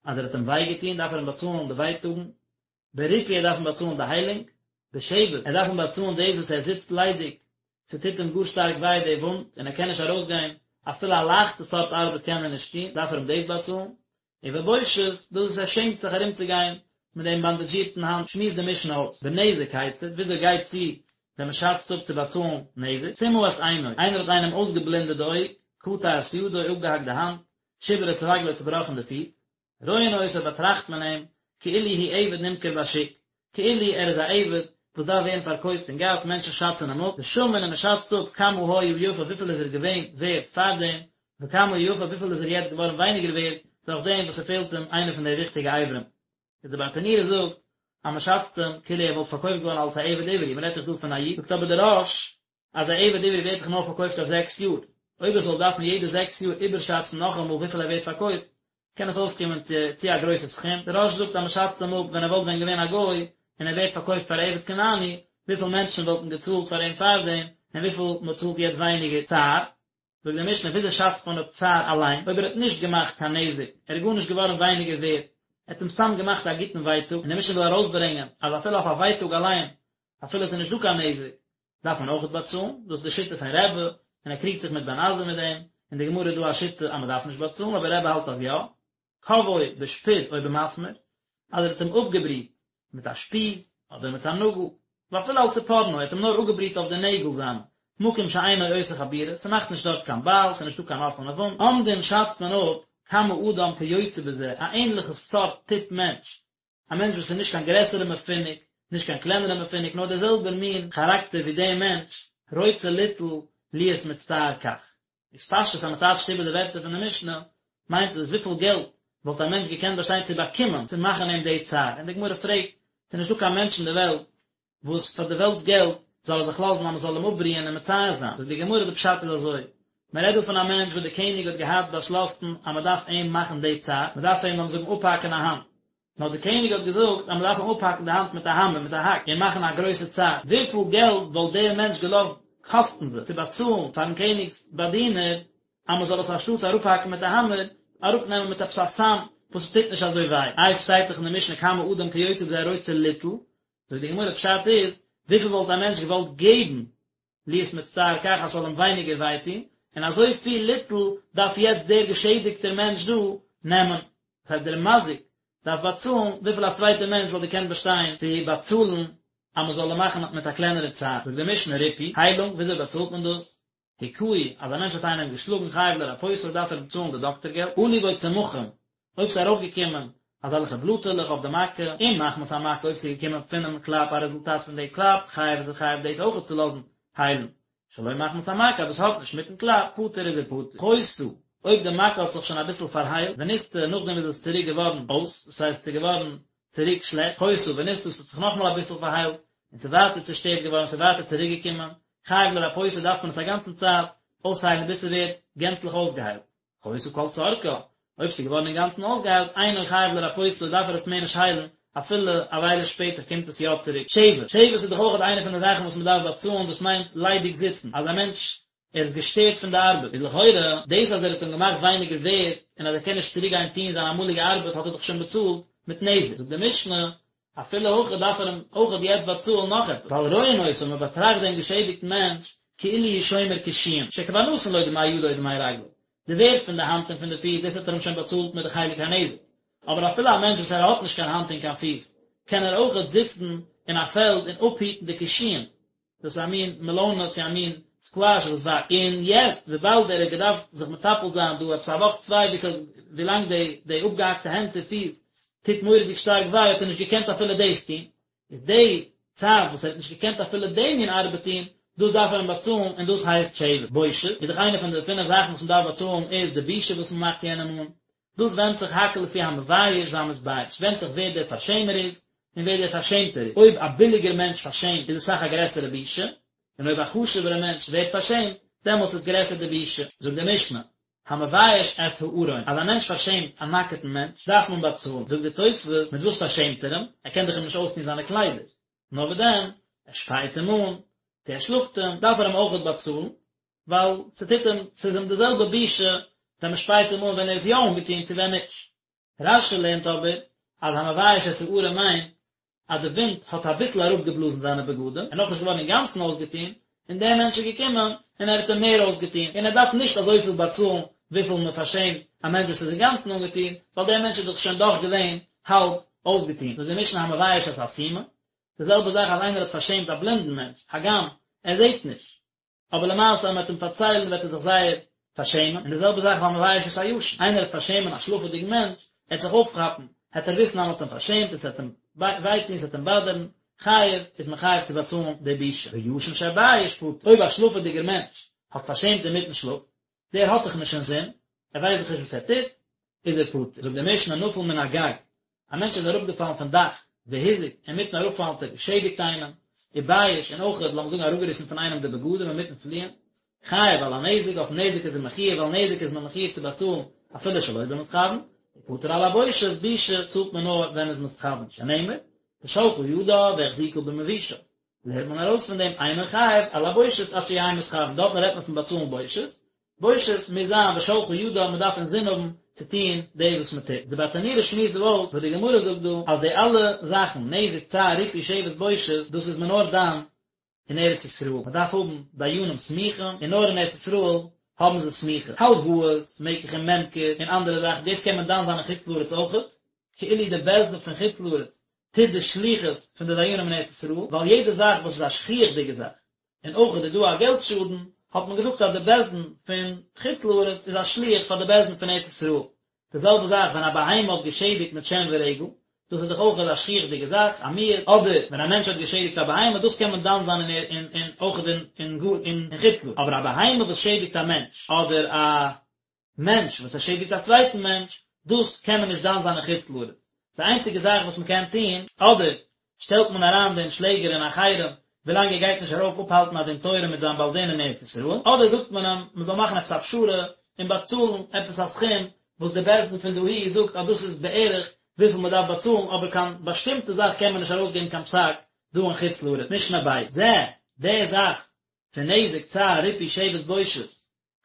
אז ער האט אים וויי געטון דארף ער אים באצאלן די ווייטאגן, בריפוי ער דארף אים באצאלן די היילונג, בשבת ער דארף אים באצאלן דאס וואס ער זיצט ליידיג, ס'טוט אים גאר שטארק וויי די וואונד און ער קען נישט ארויסגיין, אפילו א לייכטע סארט ארבעט קען ער נישט טון, דארף ער אים דאס באצאלן, ובבושת, דאס וואס ער שעמט זיך ארומצוגיין מיט דעם באנדאזשירטן האנט, שמועסט די משנה אויס, בנזק כיצד, וויאזוי גייט צו ווען מען שאצט אפ צו באצאלן נזק, סימא את עינו, איינער האט איינעם אויסגעבלינדעט די אויג, קטע את ידו, אפגעהאקט די האנט, שיבר את רגלו, צובראכן די פיס, רואין אותו באטראכט מען אים כאילו הוא עבד נמכר בשוק, כאילו ער איז א עבד וואס דארף ווערן פארקויפט אין גאס, מענטשן שאצן אים אפ, ושמין און מען שאצט אפ כמה היה יפה וויפיל איז ער געווען ווערט פארדעם, וכמה הוא יפה וויפיל איז ער יעצט געווארן ווייניגער ווערט דורך דעם וואס ס'פעלט אים איינע פון די וויכטיגע אברים. איז דער ברטנורא זאגט אז מען שאצט אים כאילו ער וואלט פארקויפט געווארן אלס א עבד עברי, מען רעדט דאך דא פון א איד, זאגט אבער דער רא"ש אז א עבד עברי ווערט דאך נאר פארקויפט אויף זעקס יאר, אויב ער זאל דארפן יעדע זעקס יאר איבערשאצן נאכאמאל וויפיל ער ווערט פארקויפט, קען עס אויסקומען צו צו א גרויסע סכום, דער רא"ש זאגט אז מען שאצט אים אפ ווען ער וואלט ווען געווען א גוי און ער ווערט פארקויפט פאר עבד כנעני, וויפיל מענטשן וואלטן געצאלט פאר אים פארדעם, און וויפיל מען צאלט יעצט ווייניגער צער. זאגט די משנה וויאזוי שאצט מען אפ צער אליין, אויב ער האט נישט געמאכט קיין נזק, ער איז גארנישט געווארן ווייניגער ווערט, ער האט אים סתם געמאכט א גוטן ווייטאג, און די משנה וויל ארויסברענגען אז אפילו אויף א ווייטאג אליין, אפילו עס איז נישט דא קיין נזק, דארף מען אויכעט באצאלן, דאס איז די שיטה פון רבי, און ער קריגט זיך מיט בן עזאי מיט דעם, אין די גמרא איז דא א שיטה אז מען דארף נישט באצאלן, אבער רבי האלט אז יא, כוואו בשפוד או במסמר, אז ער האט אים אפגעבריט מיט א שפיז אדער מיט א נאגל, ואפילו על צפורנו, ער האט אים נאר אפגעבריט אויף די נעגל זיינע, מקום שאינו עושה חבורה, ס'מאכט נישט דארט קיין בייל, ס'איז נישטא קיין אפענע וואונד, אומדין שאצט מען אפ כמה אדם כיוצא בזה, א ענליכע סארט טיפ מענטש, א מענטש וואס איז נישט קיין גרעסערע מפונק, נישט קיין קלענערע מפונק, נאר דער זעלבער מין כאראקטער ווי דעם מענטש, רוצה ליטול להיות מצטער כך. איז פשטות אז מען טייטשט איבער די ווערטער פון די משנה, מיינט עס וויפיל געלט וואלט א מענטש געקענט באשטיין צו באקומען צו מאכן אים די צער, און די גמרא פרעגט, ס'איז נישטא קיין מענטש אין די וועלט וואס פאר די וועלטס געלט זאל ער זיך לאזן אז מען זאל אים אפבריען און מצער זיין, זאגט די גמרא די פשט איז אזוי, מען רעדט דא פון א מענטש וואס די קעניג האט געהאט באשלאסן אז מען דארף אים מאכן די צער, מען דארף אים לאמיר זאגן אפהאקן א האנט, נאר די קעניג האט געזאגט אז מען דארף אים אפהאקן די האנט מיט א האמער מיט א האק און מאכן א גרויסע צער, וויפיל געלט וואלט דער מענטש געלאזט קאסטן זיך צו באצאלן פארן קעניג'ס באדינער אז מען זאל עס אנשטאטס אראפהאקן מיט א האמער, אראפנעמען מיט עפעס א סם וואס עס טוט נישט אזוי וויי, איי עס שטייט דאך אין די משנה כמה אדם כיוצא בזה רוצה ליטול, זאגט די גמרא פשט איז, וויפיל וואלט א מענטש געוואלט געבן להיות מצטער כך אז ס'זאל אים ווייניגער וויי טון, און אזוי פיל ליטול דארף יעצט דער געשעדיגטער מענטש דא נעמען, דאס הייסט דער מזיק דארף באצאלן וויפיל א צווייטער מענטש וואלט געקענט באשטיין צו באצאלן אז מען זאל אים מאכן מיט א קלענערע צער, זאגט די משנה ריפוי, היילונג, וויאזוי באצאלט מען דאס? הכהו, אז א מענטש האט איינעם געשלאגן חייב לרפאותו דארף ער צאלן די דאקטער געלט, עלו בו צמחים, אויב ס'איז ארויפגעקומען אזעלכע בלאטעלעך אויף די מכה, אם מחמת המכה אויב ס'איז געקומען פונעם קלאפ א רעזולטאט פון די קלאפ, חייב איז ער חייב דאס אויכעט צו לאזן היילן, שלא מחמת המכה דאס האט נישט מיטן קלאפ, פטור איז ער פטור. חיתה, אויב די מכה האט זיך שוין אביסל פארהיילט, ונסתה, נאכדעם איז עס צוריק געווארן אויס, דאס הייסט ס'איז געווארן צוריק שלעכט, חיתה ונסתה, ס'האט זיך נאכאמאל אביסל פארהיילט, און ס'איז ווייטער צושטערט געווארן, ס'איז ווייטער צוריק געקומען, חייב לרפאותה דארף מען עס א גאנצן צייט אויסהיילן ביז ס'ווערט גענצליך אויסגעהיילט. חיתה כל צרכה, אויב ס'איז געווארן אינגאנצן אויסגעהיילט, אינו חייב לרפאותה דארף ער עס מער נישט היילן, אפילו א וויילע שפעטער קומט עס יא צוריק. שבת, שבת איז דאך אויך איינע פון די זאכן וואס מ'דארף באצאלן, דאס מיינט ליידיג זיצן, אז א מענטש ער איז געשטערט פון די ארבעט, איז לכאורה דאס אז ער האט אים געמאכט ווייניגער ווערד און אז ער קען נישט צוריק גיין טון זיין אמאליגע ארבעט האט ער דאך שוין באצאלט מיט נזק, זאגט די משנה, אפילו הכי דארף ער אים אויכעט יעצט באצאלן נאך עפעס, ווייל רואין אותו מען באטראכט דעם געשעדיגטן מענטש כאילו הוא שומר קישואים, שכבר נתן לו דמי ידו ודמי רגלו, די ווערד פון די האנט און פון די פיס דאס האט ער אים שוין באצאלט מיט די חלק הנזק, אבער אפילו א מענטש וואס ער האט נישט קיין האנט און קיין פיס קען ער אויכעט זיצן אין א פעלד און אפהיטן די קישואים, דאס איז א מין מעלאנע צו א מין סקוואש וואס וואקסט, און יעצט וויבאלד ער האט געדארפט זיך מטפל זיין דא עפעס א וואך צוויי ווי ס'האט ווילאנג די די אפגעהאקטע הענט צו פיס טוט מורא'דיג שטארק וויי האט ער נישט געקענט אפילו דאס טון, איז די צייט וואס ער האט נישט געקענט אפילו די מין ארבעט טון, דאס דארף ער אים באצאלן און דאס הייסט שבת. בושת איז דאך איינע פון די פינף זאכן וואס מ'דארף באצאלן איז די בושה וואס מ'מאכט יענעם אן, דאס ווענדט זיך הכל לפי המבייש והמתבייש, ווענדט זיך ווער דער פארשעמער איז, און ווער דער פארשעמטער איז, אויב א ביליגער מענטש פארשעמט איז עס אסאך א גרעסערע בושה, און אויב א חשובערע מענטש ווערט פארשעמט, דעמאלטס איז גרעסער די בושה. זאגט די משנה, המבייש את הערום, אז א מענטש פארשעמט א נאקעטן מענטש, דארף מען באצאלן. זאגט די תוספות, מיט וואס פארשעמט ער אים? ער קען דאך אים נישט אויסטון זיינע קליידער. נאר וואס דען, ער שפייט אים אן, צו ער שלאגט אים, דארף ער אים אויכעט באצאלן, ווייל ס'טוט אים, ס'איז אים די זעלבע בושה ווען מ'שפייט אים אן ווען ער איז יא אנגעטון צו ווען נישט. רש"י לערנט אבער אז המבייש את הערום מיינט אז די ווינט האט אביסל אראפגעבלאזן זיינע בגדים, ער איז נאכנישט געווארן אינגאנצן אויסגעטון, און דער מענטש איז געקומען און ער האט אים מער אויסגעטון, און ער דארף נישט אזויפיל באצאלן וויפיל מען פארשעמט א מענטש וואס איז אינגאנצן אנגעטון, ווייל דער מענטש איז דאך שוין דאך געווען האלב אויסגעטון. זאגט די משנה המבייש את הסומא, די זעלבע זאך אז איינער האט פארשעמט א בלינדן מענטש, הגם ער זעט נישט, אבער למעשה אז מען וועט אים פארציילן וועט ער זיך זייער פארשעמען, און די זעלבע זאך והמבייש את הישן, איינער וועט פארשעמען א שלאפעדיגן מענטש, ער וועט זיך אויפכאפן, העט ער וויסן אז מען האט אים פארשעמט און ס'וועט אים וויי טון, ס'וועט אים באדערן, חייב, איז מען חייב צו באצאלן די בושה. וישן שבייש פטור, אויב א שלאפעדיגער מענטש האט פארשעמט אינמיטן שלאף, דער האט דאך נישט אינזין, ער ווייסט דאך נישט וואס ער טוט, איז ער פטור. זאגט די משנה נפל מן הגג, א מענטש איז אראפגעפאלן פון דאך, והזיק, אינמיטן אראפפאלן האט ער געשעדיגט איינעם, ובייש, און אויך, לאמיר זאגן אראפגעריסן פון איינעם די בגדים אינמיטן פליען, חייב על הנזק, אויפן נזק איז ער מחויב, ווייל נזק איז מען מחויב צו באצאלן אפילו שלא במתכוין, ופטור על הבושת, בושה צאלט מען נאר ווען מען איז מתכוין, שנאמר, ושלחה ידה והחזיקה במבושיו. לערנט מען ארויס פון דעם אינו חייב על הבושת עד שיהא מתכוין, דארטן רעדט מען פון באצאלן בושת, בושת מוז זיין ושלחה ידה, מען דארף אינזין האבן צו טון דאס וואס מען טוט. די ברטנורא שמועסט דא אויס וואס די גמרא זאגט דא אז די אלע זאכן, נזק, צער, ריפוי, שבת, בושת, דאס איז מען נאר דן אין ארץ ישראל, מען דארף האבן דיינים סמוכים, און נאר אין ארץ ישראל האבן זיי סמיכה. הלוואות, מקח און ממכר, און אנדערע זאכן, דאס קען מען דן זיין אין חוץ לארץ אויכעט, כאילו די בית דין פון חוץ לארץ טוט די שליחות פון די דיינים אין ארץ ישראל, ווייל יעדע זאך וואס איז א שכיח'דיגע זאך, און אויך איז דא א געלט שאדן, האט מען געזאגט אז די בית דין פון חוץ לארץ איז א שליח פאר די בית דין פון ארץ ישראל. די זעלבע זאך ווען א בהמה האט געשעדיגט מיט שן ורגל, דאס איז דאך אויך א שכיח'דיגע זאך, א מועד, אדער ווען א מענטש האט געשעדיגט א בהמה, דאס קען מען דן זיין אין אין אויך אין אין גאר אין חוץ לארץ, אבער א בהמה וואס שעדיגט א מענטש, אדער א מענטש וואס ער שעדיגט א צווייטן מענטש, דאס קען מען נישט דן זיין אין חוץ לארץ. די איינציגע זאך וואס מען קען טון, אדער שטעלט מען אריין דעם שלעגער אין א חרם ווילאנג ער גייט נישט ארויף אפהאלטן א דין תורה מיט זיין בעל דין אין ארץ ישראל, אדער זאגט מען אים מען זאל מאכן עפעס א פשרה און באצאלן עפעס א סכום וואס די בית דין פון דאהי זאגט אז דאס איז בערך וויפיל מען דארף באצאלן, אבער קיין באשטימטע זאך קען מען נישט ארויסגעבן קיין פסק דא אין חוץ לארץ. משנה ב'. זה, די זאך פון נזק צער ריפוי שבת בושת,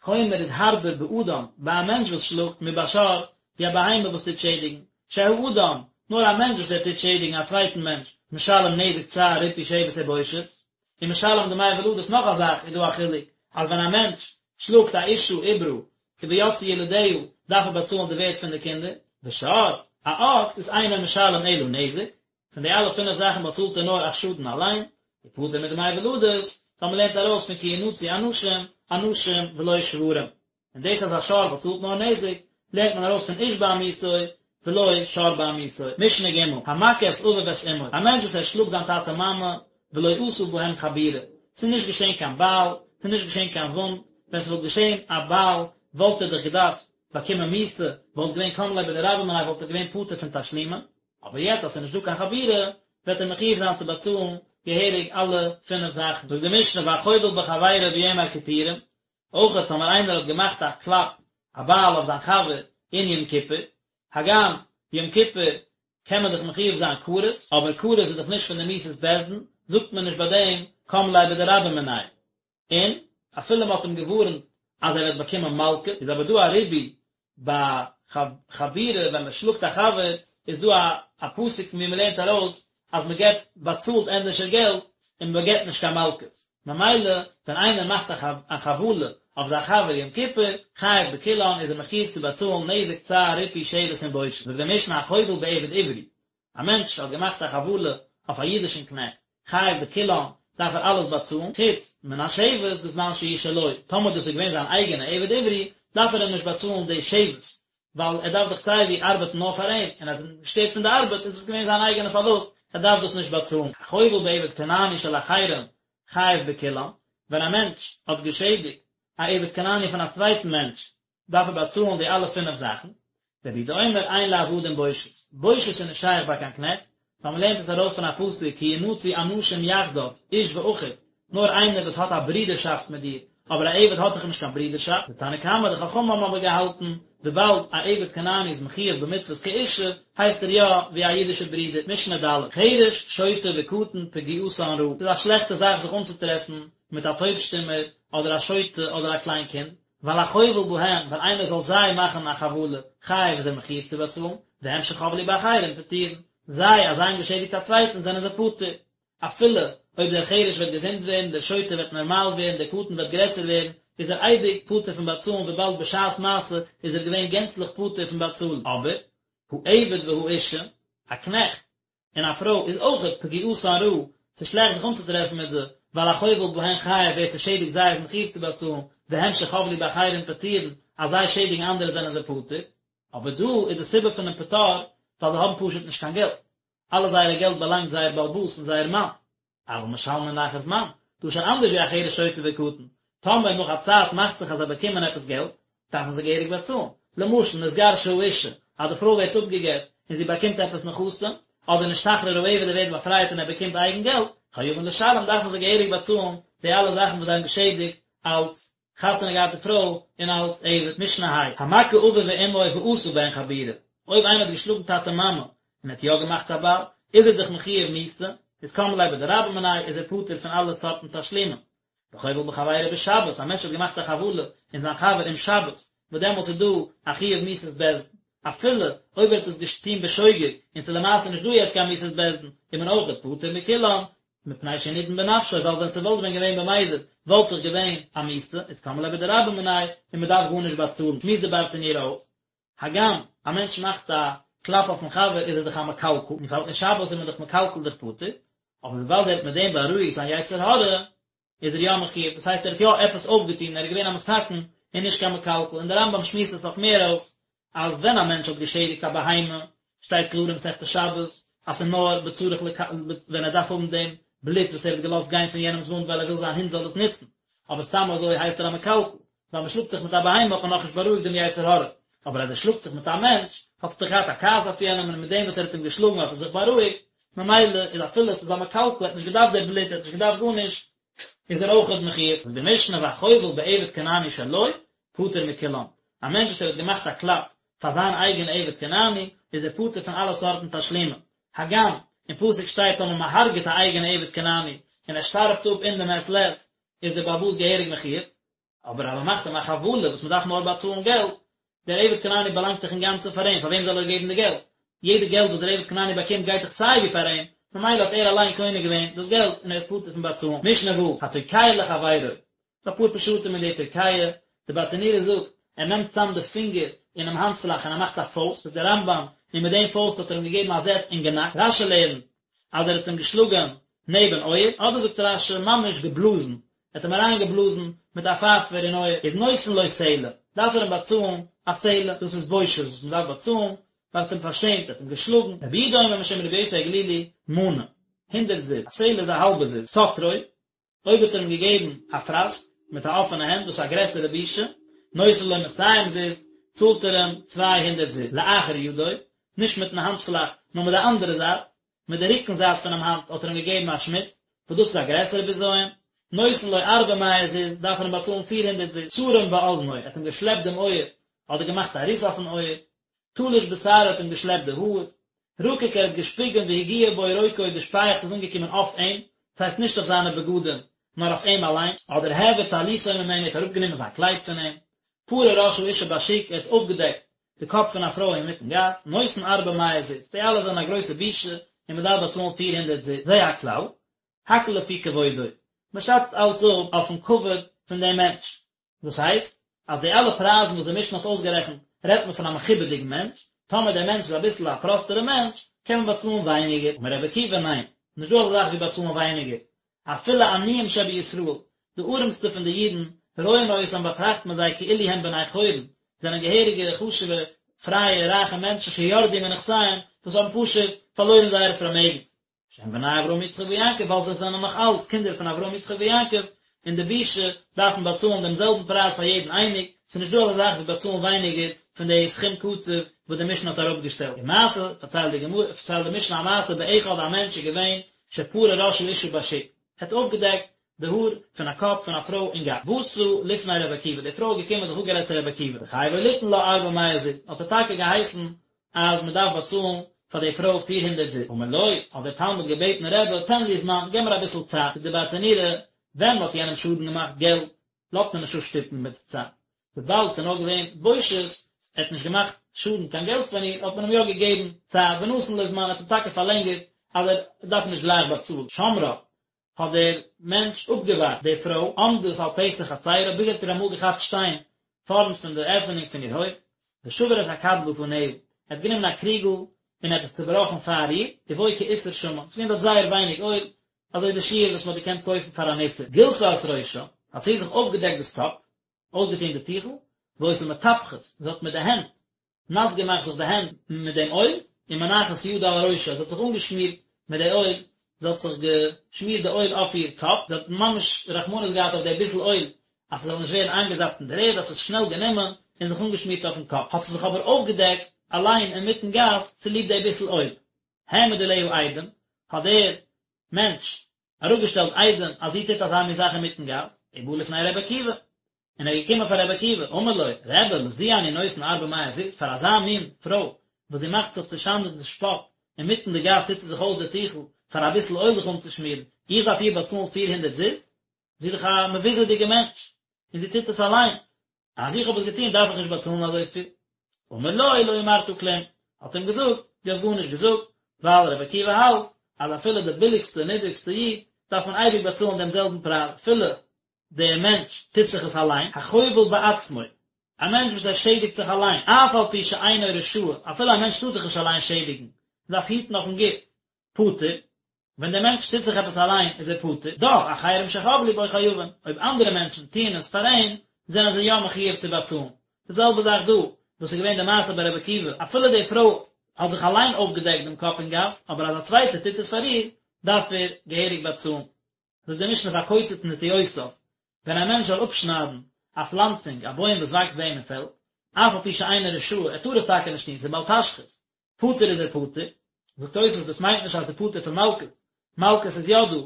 חומר איז הארבער באדם, ביי א מענטש וואס שלאגט, מבשור, ווי א בהמה וואס טוט שעדיגן, שהאדם, נאר א מענטש וואס ער טוט שעדיגן א צווייטן מענטש, משלם נזק צער ריפוי שבת ובושת, ומשלם דמי ולדות נאך א זאך איז דא א חילוק, אז ווען א מענטש שלאגט א אשה עוברה, ויצאו ילדיה, דארף ער באצאלן די ווערט פון די קינדער, ושור, א אקס איז אינו משלם אלא נזק, פון די אלע פינף זאכן באצאלט ער נאר א שאדן אליין, ופטור מדמי ולדות, ווייל מען לערנט ארויס פון כי ינצו אנשים, אנשים ולא שוורים. און דאס אז א שור באצאלט נאר נזק, לערנט מען ארויס פון איש בעמיתו, ולא שור בעמיתו. משנה ג', המכה את אביו ואת אמו, א מענטש וואס ער שלאגט זיין טאטע מאמע, ולא עשה בהם חבורה, ס'איז נישט געשען קיין בייל, ס'איז נישט געשען קיין וואונד, ווען ס'וואלט געשען א בייל וואלט ער דאך געדארפט באקומען מיתה, וואלט געווען קם ליה בדרבה מיניה וואלט ער געווען פטור פון תשלומין, אבער יעצט אז ס'איז נישט דא קיין חבורה, וועט ער מחויב זיין צו באצאלן געהעריג אלע פינף זאכן. זאגט די משנה והחובל בחבירו ביום הכיפורים, אויך טאמער איינער האט געמאכט א קלאפ, א בייל אויף זיין חבר אין יום כיפור, הגם יום כיפור קען מען דאך מחויב זיין כרת, אבער כרת איז דאך נישט פון די מיתות בית דין, זאגט מען נישט ביי דעם קם ליה בדרבה מיניה. און אפילו מען האט אים געווארנט אז ער וועט באקומען מלקות, איז אבער דא א ריבוי ביי חבורה ווען מען שלאגט א חבר, איז דא א א פסוק פון ווי מען לערנט ארויס אז מען געבט באצאלט ענדערשער געלט און מען געבט נישט קיין מלקות, ממילא ווען איינער מאכט א חבלה אויף זיין חבר יום כיפור, חייב בכולן איז ער מחויב צו באצאלן נזק צער ריפוי שבת און בושת, זאגט די משנה החובל בעבד עברי, א מענטש האט געמאכט א חבלה אויף א אידישן קנעכט, חייב בכולן, דארף ער אלעס באצאלן, חוץ מן השבת בזמן שהוא שלו, טאמער דאס איז געווען זיין אייגענע עבד עברי, דארף ער אים נישט באצאלן די שבת, ווייל ער דארף דאך סיי ווי ארבעטן נאר פאר אים, און אז ער האט אים געשטערט פון די ארבעט איז עס געווען זיין אייגענע פארלוסט, ער דארף דאס נישט באצאלן. החובל בעבד כנעני של אחרים חייב בכולן, ווען א מענטש האט געשעדיגט א עבד כנעני פון א צווייטן מענטש, דארף ער באצאלן די אלע פינף זאכן, רבי יהודה אומר אין לעבדים בושת, בושת איז נישט שייך ביי קיין קנעכט, ווייל מען לערנט עס ארויס פון א פסוק כי ינצו אנשים יחדיו, איש ואחיו, נאר איינער וואס האט א ברודערשאפט מיט דיר, אבער א עבד האט דאך נישט קיין ברודערשאפט, די תנא קמא, די חכמים האבן אבער געהאלטן, וויבאלד א עבד כנעני איז מחויב במצוות כאישה, הייסט ער יא ווי א אידישער ברודער, משנה ד', חרש, שוטה וקטן פגיעתן רעה, ס'איז א שלעכטע זאך זיך אנצוטרעפן מיט א טויב-שטומער, אדער א שוטה, אדער א קליין קינד, ווייל החובל בהם, ווען איינער זאל זיי מאכן א חבלה, חייב איז ער מחויב צו באצאלן, והם שחבלו באחרים פטורין, זיי אז זיי האבן געשעדיגט א צווייטן זענען זיי פטור. אפילו אויב דער חרש וועט געזונט ווערן, דער שוטה וועט נארמאל ווערן, דער קטן וועט גרעסער ווערן, איז ער אייביג פטור פון באצאלן וויבאלד בשעת מעשה איז ער געווען גענצליך פטור פון באצאלן. אבער, העבד והאישה, א קנעכט און א פרוי איז אויכעט פגיעתן רעה, ס'איז שלעכט זיך אנצוטרעפן מיט זיי, ווייל החובל בהן חייב ווער ס'שעדיגט זיי איז מחויב צו באצאלן, והם שחבלו באחרים פטורין, אז זיי שעדיגן אנדערע זענען זיי פטור. אבער דא איז די סיבה פונעם פטור ווייל זיי האבן פשוט נישט קיין געלט. אלע זייערע געלט באלאנגט זייער בעל הבית און זייער מאן. אבל משלמין לאחר זמן, דא איז שוין אנדערש ווי א חרש שוטה וקטן, טאמער נאך א צייט מאכט זיך אז זיי באקומען עפעס געלט, דארפן זיי געהעריג באצאלן. למשל, נתגרשה האישה, אז די פרוי ווערט אפגע'גט און זי באקומט עפעס נכסים, אדער נשתחרר העבד ער ווערט באפרייט און ער באקומט אייגן געלט, חייבין לשלם דארפן זיי געהעריג באצאלן די אלע זאכן וואס זיי האבן געשעדיגט אלס חתונה געהאטע פרוי און אלס עבד. משנה ה', המכה אביו ואמו ועשה בהן חבורה, אויב איינער האט געשלאגן טאטע מאמע און האט יא געמאכט א בייל, איז ער דאך מחויב מיתה, איז קם ליה בדרבה מיניה, איז ער פטור פון אלע סארטן תשלומים. וחובל בחבירו בשבת, א מענטש האט געמאכט א חבלה אין זיין חבר אום שבת, וואס דעמאלטס איז דא א חיוב מיתת בית דין, אפילו אויב ער האט עס געטון בשוגג און ס'איז למעשה נישט דא יעצט קיין מיתת בית דין, איז מען אויכעט פטור מכולן, מפני שהוא נידון בנפשו, ווייל ווען ס'וואלט ווען געווען במזיד וואלט דאך געווען א מיתה, איז קם ליה בדרבה מיניה און מ'דארף גארנישט באצאלן, שמועסט די ברטנורא אויס, הגם א מענטש מאכט א קלאפ אויפן חבר איז ער דאך א מקלקל, און פאר אין שבת איז מען דאך מקלקל דאך פטור, אבער וויבאלד ער האט מיט דעם בארואיגט זיין יצר הרע, איז ער יא מחויב, דאס הייסט ער האט יא עפעס אויפגעטון, ער איז געווען א מתקן און נישט קיין מקלקל, און דער רמב"ם שמועסט עס אויך מער אויס, אז ווען א מענטש האט געשעדיגט א בהמה, שטייט קלאר אין מסכת שבת, אז ס'איז נאר בצריך לק ווען ער דארף האבן דעם בלוט וואס ער האט געלאזט גיין פון יענעמ'ס וואונד ווייל ער וויל זיין הונט זאל עס נוצן, אבער סתם אזוי הייסט ער א מקלקל, ווייל מ'שלאגט זיך מיט א בהמה האט מען נאכנישט בארואיגט דעם יצר הרע, אבער אז ער שלאגט זיך מיט א מענטש, האט ער דאך געהאט א כעס אויף יענעם און מיט דעם וואס ער האט אים געשלאגן האט ער זיך בארואיגט, ממילא איז אפילו עס איז א מקלקל, ער האט נישט געדארפט די בלוט, ער האט נישט געדארפט גארנישט, איז ער אויכעט מחויב. זאגט די משנה והחובל בעבד כנעני שלו, פטור מכולם. א מענטש וואס ער האט געמאכט א קלאפ פאר זיין אייגענע עבד כנעני, איז ער פטור פון אלע סארטן תשלומים. הגם, אין פסוק שטייט טאמער מען הרג'עט א אייגענע עבד כנעני, און ער שטארבט אפ אין די מעת לעת, איז דער בעל הבית געהעריג מחויב. אבער אז מען מאכט אים א חבלה וואס מען דארף נאר באצאלן געלט, דער עבד כנעני באלאנגט דאך אינגאנצן פאר אים, פאר וועם זאל ער געבן די געלט? יעדע געלט וואס דער עבד כנעני באקומט גייט דאך סיי ווי פאר אים, ממילא האט ער אליין קונה געווען דאס געלט און ער איז פטור פון באצאלן. משנה ו', התוקע לחבירו, ס'דא אפאר פשטים אין די תוקע, די ברטנורא זאגט, ער נעמט צאם די פינגער אינעם האנטפלאך און ער מאכט א פויסט, זאגט דער רמב"ם, און מיט דעם פויסט האט ער אים געגעבן א זעץ אין גענאק, רש"י לערנט אז ער האט אים געשלאגען נעבן אויער, אדער זאגט רש"י ממש געבלאזן, ער האט אים אריין געבלאזן מיט א פייפער אין אויער, איז נותן לו סלע, דארף ער אים באצאלן א סלע, דאס איז בושת וואס מען דארף באצאלן, ווייל ער האט אים פארשעמט, ער האט אים געשלאגן, רבי יהודה אומר משום רבי יוסי הגלילי, מנה, הונדרעט זוז, א סלע איז א האלבע זוז, סטרו, אויב האט ער אים געגעבן א פראסק מיט א אפענע הענט, דאס איז א גרעסערע בושה, נותן לו מאתים זוז, צאלט ער אים 200 זוז, לאחר ידו, נישט מיטן האנטפלאך, נאר מיט די אנדערע זייט, מיט די רוקן זייט פונעם האנט האט ער אים געגעבן א שמיץ, וואס דאס איז א גרעסערע בזיון, נותן לו ארבע מאות זוז, דארף ער אים באצאלן 400 זוז, צרם באזנו, ער האט אים געשלעפט דעם אויער, אדער געמאכט א ריס אויפן אויער, תלש בשערו האט אים געשלעפט די האר, רקק ער האט געשפיגען והגיע בו רוקו די שפייעכץ איז אנגעקומען אויף אים, דאס הייסט נישט אויף זיינע בגדים, נאר אויף אים אליין, אדער העביר טליתו ממנו ער האט אראפגענומען זיין קלייד פון אים, פרע ראש האשה בשוק ער האט אויפגעדעקט די קאפ פון א פרוי אינמיטן גאס, נותן ארבע מאות זוז, די אלע זענען א גרויסע בושה און מען דארף באצאלן 400 זוז, זה הכלל, הכל לפי כבודו, מען שאצט אלץ אפ אויפן כבוד פון דעם מענטש, דאס הייסט, אז די אלע פרייזן וואס די משנה האט אויסגערעכנט רעדט מען פון א מכובד'יגן מענטש, טאמער דער מענטש איז אביסל א פראסטערע מענטש, קען מען באצאלן ווייניגער, אמר רבי עקיבא ניין, נישט דא אזא זאך ווי באצאלן ווייניגער, אפילו עניים שבישראל, די ארעמסטע פון די אידן, רואין אותם באטראכט מען זיי כאילו הם בני חורין, זענען געהעריגע חשוב'ע פרייע רייכע מענטשן שירדו מנכסיהם, וואס האבן פשוט פארלוירן זייערע פארמעגנס. שהם בני אברהם יצחק ויעקב ווייל זיי זענען נאך אלץ קינדער פון אברהם יצחק ויעקב, און די בושה דארף מען באצאלן דעם זעלבן פרייז פאר יעדן אייניג, ס'איז נישט דא אזא זאך ווי באצאלן ווייניגער פון די סכום קצוב וואס די משנה האט אראפגעשטעלט. ומעשה, פארציילט די גמרא, פארציילט די משנה א מעשה באחד א מענטש איז געווען שפרע ראש האשה בשוק, ער האט אויפגעדעקט. די האר פון א קאפ פון א פרוי אין גאס. באתה לפני רבי עקיבא, די פרוי איז געקומען זיך אפגערעדט צו רבי עקיבא, וחייבו ליתן לה ארבע מאות זוז, האט ער טאקע געהייסן אז מען דארף באצאלן פאר די פרוי פיר הונדערט זוז. אמר לו, האט דער תלמיד געבעטן רבי, תן לי זמן, געב מיר אביסל צייט, זאגט דער ברטנורא, ווען מען האט יענעם שאדן געמאכט געלט, לאזט מען נישט אפשטופן מיט צייט. וויבאלד ס'איז נאר געווען בושת, ער האט נישט געמאכט שאדן קיין געלט פון איר, האט מען אים יא געגעבן צייט, ונתן לו זמן, ער האט אים טאקע פארלענגערט אז ער דארף נישט גלייך באצאלן. שמרה, האט דער מענטש אפגעווארט די פרוי, עומדת על פתח חצרה, ביז ער האט איר אמאל געכאפט שטיין פארנט פון די עפענונג פון איר הויף, ושבר את הכד בפניה, ער האט גענומען א קריגל און ער האט עס צובראכן פאר איר, ובו כאיסר שמן, ס'איז געווען דארט זייער ווייניג אויל, אזוי די שיעור וואס מ'האט געקענט קויפן פאר אן איסר. גילתה את ראשה, האט זי זיך אויפגעדעקט דאס קאפ, אויסגעטון די טיכל, והיתה מטפחת, זי האט מיט די הענט נאס געמאכט זיך די הענט מיט דעם אויל, ומנחת ידה על ראשה, זי האט זיך אנגעשמירט מיט די אויל, זי האט זיך געשמירט די אויל אויף איר קאפ, זי האט ממש רחמנות געהאט אויף די ביסל אויל אז ס'זאל נישט ווערן איינגעזאפט אין דער ערד, האט זי עס שנעל גענומען און זיך אנגעשמירט אויפן קאפ, האט זי זיך אבער אויפגעדעקט אליין אינמיטן גאס צוליב די ביסל אויל. העמיד עליה עדים, האט דער מענטש אראפגעשטעלט עדים אז זי טוט אזא מין זאך אינמיטן גאס, ובא לפני רבי עקיבא, און ער איז געקומען פאר רבי עקיבא, אמר לו, רבי, לזו אני נותן ארבע מאות זוז, פאר אזא מין פרוי, וואס זי מאכט זיך צו שאנד און צו שפאט, אינמיטן די גאס טוט זי זיך אויס די טיכל, פאר אביסל אויל זיך אנצושמירן, איך דארף איר באצאלן פיר הונדערט זוז? זי איז דאך א מבוזה'דיגע מענטש, און זי טוט עס אליין, אז איך האב עס געטון דארף איך נישט באצאלן אזויפיל. אמר לו לא אמרת כלום, האט אים געזאגט, דו האסט גארנישט געזאגט, ווייל רבי עקיבא האלט אז אפילו די ביליגסטע און נידריגסטע איד דארף מען אייביג באצאלן דעם זעלבן פרייז, אפילו דער מענטש טוט זיך עס אליין, החובל בעצמו, א מענטש וואס ער שעדיגט זיך אליין, אף על פי שאינו רשאי, אפילו א מענטש טאר זיך נישט אליין שעדיגן, מען דארף היטן אויפן גוף, פטור, ווען דער מענטש טוט זיך עפעס אליין איז ער פטור, דאך אחרים שחבלו בו חייבין, אויב אנדערע מענטשן טוען עס פאר אים, זענען זיי יא מחויב צו באצאלן. די זעלבע זאך דא, וואס איז געווען די מעשה ביי רבי עקיבא, אפילו די פרוי האט זיך אליין אויפגעדעקט דעם קאפ אין גאס, אבער אז א צווייטער טוט עס פאר איר, דארף ער געהעריג באצאלן. זאגט די משנה והקוצץ נטיעותיו, ווען א מענטש זאל אפשניידן א פלאנצונג, א בוים וואס וואקסט ביי אים אין פעלד, אף על פי שאינו רשאי, ער טאר עס טאקע נישט טון, ס'איז בל תשחית, פטור איז ער פטור, זאגט תוספות דאס מיינט נישט אז ער איז פטור פון מלקות, מלקות איז יא דא,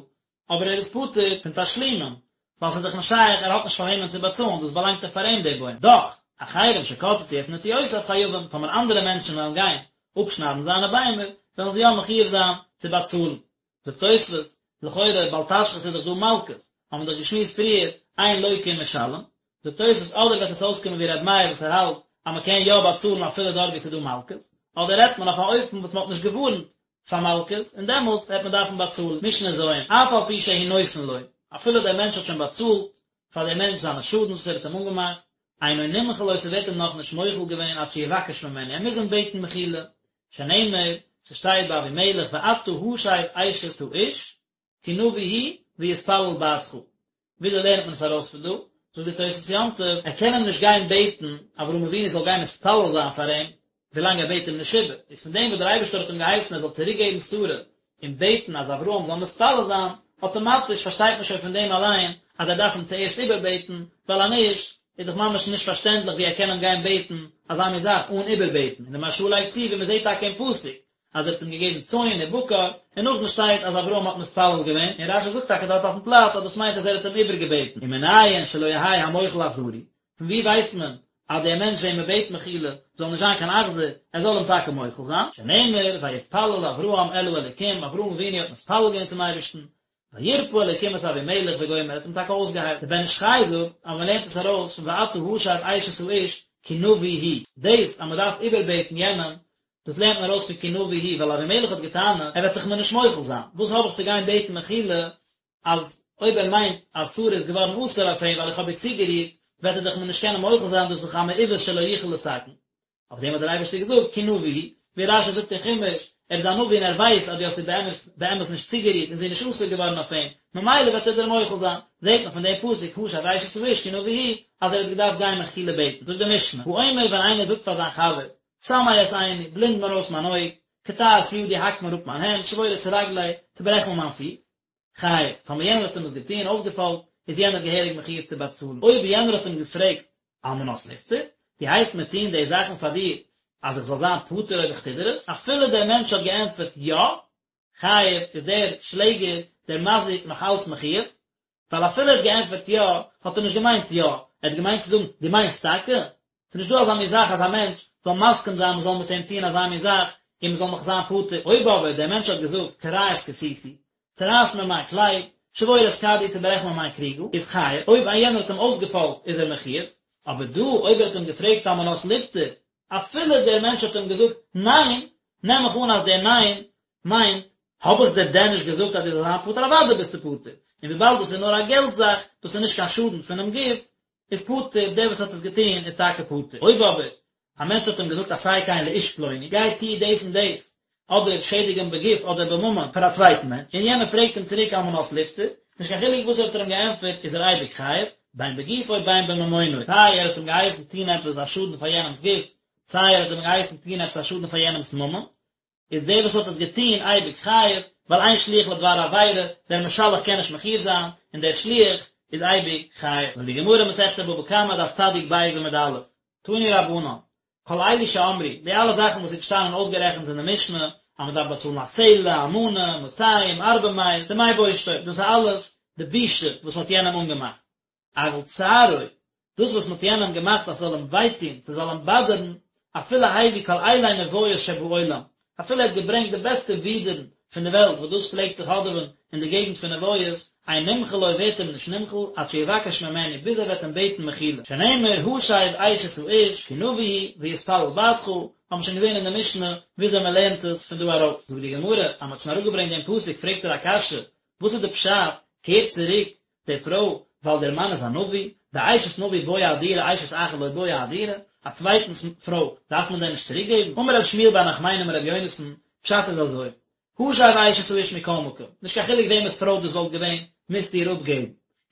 אבער ער איז פטור פון תשלומים, ווייל ס'איז דאך נישט שייך ער האט נישט פאר וועמען צו באצאלן, דאס באלאנגט דאך פאר אים דער בוים, דאך, אחרים שקצצו את נטיעותיו חייבים, טאמער אנדערע מענטשן וועלן גיין אפשניידן זיינע ביימער, וועלן זיי יא מחויב זיין צו באצאלן. זאגט תוספות, לכאורה בל תשחית איז דאך דא מלקות, האבן מיר דאך געשמועסט פריער, אין לוקה ומשלם, זאגט תוספות אדער וועט עס אויסקומען ווי ר' מאיר וואס ער האלט אז מען קען יא באצאלן אפילו דארט ווי עס איז דא מלקות, אדער רעדט מען אויף א אופן וואס מען האט נישט געווארנט פאר מלקות און דעמאלטס וועט מען דארפן באצאלן, משנה ז', אף על פי שהוא נותן לו, אפילו דער מענטש האט שוין באצאלט פאר דעם מענטש זיינע שאדנס וואס ער האט אים אנגעמאכט, אינו נמחל לו ס'ווערט אים נאכנישט מוחל געווען עד שיבקש ממנו, ער מוז אים בעטן מחילה, שנאמר, ס'שטייט ביי אבימלך ואתה השב אשת האיש, כי נביא הוא ויתפלל בעדך. וויאזוי לערנט מען עס ארויס פון דא? זאגט די תוספות יום טוב, ער קען אים נישט גיין בעטן אברהם אבינו זאל גיין מתפלל זיין פאר אים, ווילאנג ער בעט אים נישט איבער, איז פון דעם וואס דער אייבערשטער האט אים געהייסן ער זאל צוריק געבן שרה און בעטן אז אברהם זאל מתפלל זיין, אטאמאטיש פארשטייט מען שוין פון דעם אליין אז ער דארף אים צוערשט איבערבעטן, ווייל אז נישט איז דאך ממש נישט פארשטענדליך ווי ער קען אים גיין בעטן אזא מין זאך אן איבערבעטן, און די מהרש"א לייגט צו ווי מען זעט טאקע אין פסוק אז ער האט אים געגעבן צאן און בקר, און נאכדעם שטייט אז אברהם האט מתפלל געווען, און רש"י זאגט טאקע דארט אויפן פלאץ אז דאס מיינט אז ער האט אים איבערגעבעטן, ומנין שלא יהא המוחל אכזרי, פון ווי ווייסט מען אז דער מענטש וועם מען בעט מחילה זאל נישט זיין קיין אכזר, ער זאל אים טאקע מוחל זיין, שנאמר ויתפלל אברהם אל האלוקים, אברהם אבינו האט מתפלל געווען צום אייבערשטן, וירפא אלוקים את אבימלך וגומר, ער האט אים טאקע אויסגעהיילט. דער בן איש חי זאגט אז מען לערנט עס ארויס פון ואתה השב אשת האיש כי נביא הוא, דאס אז מען דארף איבערבעטן יענעם, דאס לערנט מען ארויס פון כי נביא הוא, ווייל אבימלך האט געטענה'ט, ער וועט דאך מיר נישט מוחל זיין, וואס האב איך צו גיין בעטן מחילה, אז אויב ער מיינט אז שרה איז געווארן אסור אויף אים ווייל איך האב איר צוגערירט, וועט ער דאך מיר נישט קענען מוחל זיין, דאס איז דאך א מעוות שלא יוכל לתקן. אויף דעם האט דער אייבערשטער געזאגט כי נביא הוא, ווי רש"י זאגט אין חומש, ער איז א נביא און ער ווייסט אז דו האסט איר באמת באמת נישט צוגערירט און זי איז נישט אסור געווארן אויף אים, ממילא וועט ער דיר מוחל זיין. זעט מען פון דעם פסוק השב אשת האיש כי נביא הוא, אז ער האט געדארפט גיין מחילה בעטן. זאגט די משנה, האומר ווען איינער זאגט פאר זיין חבר, סמא את עיני, בלינד מיר אויס מיין אויג, קטע את ידי, האק מיר אפ מיין הענט, שבור את רגלי, צוברעך מיר מיין פיס, חייב, טאמער יענער האט אים עס געטון, אויסגעפאלגט, איז יענער געהעריג מחויב צו באצאלן. אויב יענער האט אים געפרעגט על מנת ליפטר, דו הייסט מיר טון די זאכן פאר דיר אז איך זאל זיין פטור אויב איך טו דיר עס? אפילו דער מענטש האט געענטפערט יא, חייב, איז דער שלעגער, דער מזיק, נאך אלץ מחויב. ווייל אפילו ער האט געענטפערט יא, האט ער נישט געמיינט יא, ער האט געמיינט צו זאגן, דו מיינסט טאקע? ס'איז נישט דא אזא מין זאך אז א מענטש זאל מסכים זיין מ'זאל מיט אים טון אזא מין זאך און מ'זאל נאך זיין פטור. אויב אבער דער מענטש האט געזאגט קרע את כסותי, צערייס מיר מיין קלייד, שבור את כדי, צעברעך מיר מיין קריגל, איז חייב, אויב א יענער האט אים אויסגעפאלגט איז ער מחויב, אבער דא אויב ער האט אים געפרעגט על מנת לפטור, אפילו דער מענטש האט אים געזאגט ניין, נעם איך אן אז דער ניין מיינט, האב איך דיר דען נישט געזאגט אז דו זאלסט זיין פטור, אוודאי ביסטו פטור, און וויבאלד דאס איז נאר א געלט זאך, דאס איז נישט קיין שאדן פונעם גוף, איז פטור, דער וואס האט עס געטון איז טאקע פטור. אויב אבער א מענטש האט אים געזאגט עשה כן לאיש פלוני, גיי טו דאס און דאס, אדער שעדיג אים בגוף אדער בממון פאר א צווייטן מענטש, און יענער פרעגט אים צוריק על מנת לפטור, נישט קיין חילוק וואס האט ער אים געענטפערט איז ער אייביג חייב, בין בגופו בין בממונו, סיי ער האט אים געהייסן טון עפעס א שאדן פאר יענעמ'ס גוף, סיי ער האט אים געהייסן טון עפעס א שאדן פאר יענעמ'ס ממון, איז דער וואס האט עס געטון אייביג חייב, ווייל אין שליח לדבר עבירה, דער משלח קען נישט מחויב זיין, און דער שליח איז אייביג חייב. זאגט די גמרא מסכת בבא קמא דף צדיק ב' עמוד א', תנו רבנן, כל אלו שאמרו, די אלע זאכן וואס איז געשטאנען אויסגערעכנט אין די משנה, אז מען דארף באצאלן א סלע, א מנה, מאתים, ארבע מאות, דמי בושתו, דאס איז אלעס די בושה וואס מען האט יענעם אנגעמאכט. אבל צערו, דאס וואס מ'האט יענעם געמאכט אז ס'זאל אים וויי טון, ס'זאל אים באדערן, אפילו הביא כל אילי נביות שבעולם, אפילו ער האט געברענגט די בעסטע ווידערן פון די וועלט וואס דאס פלעגט זיך האדעווען אין די געגנט פון נביות, אין נמחל לו ווערט אים נישט נמחל, עד שיבקש ממנו, ביז ער וועט אים בעטן מחילה. שנאמר השב אשת האיש, כי נביא הוא, ויתפלל בעדך, האבן מיר שוין געזען אין די משנה וויאזוי מ'לערנט עס פון דא ארויס. זאגט די גמרא, אז מ'האט שוין אראפגעברענגט דעם פסוק פרעגט ער א קשיא, וואס איז די פשט, קער צוריק די פרוי, ווייל דער מאן איז א נביא, דאשת נביא בעיא אהדורי אשת אחר לא בעיא אהדורי, א צווייטנס פרוי דארף מען דען נישט צוריק געבן? אמר רב שמואל בר נחמני אמר רבי יונתן, פשט איז אזוי, השב אשת האיש מכל מקום, נישט קיין חילוק וועמענס פרוי דאס וואלט געווען, מוזטו איר אפגעבן.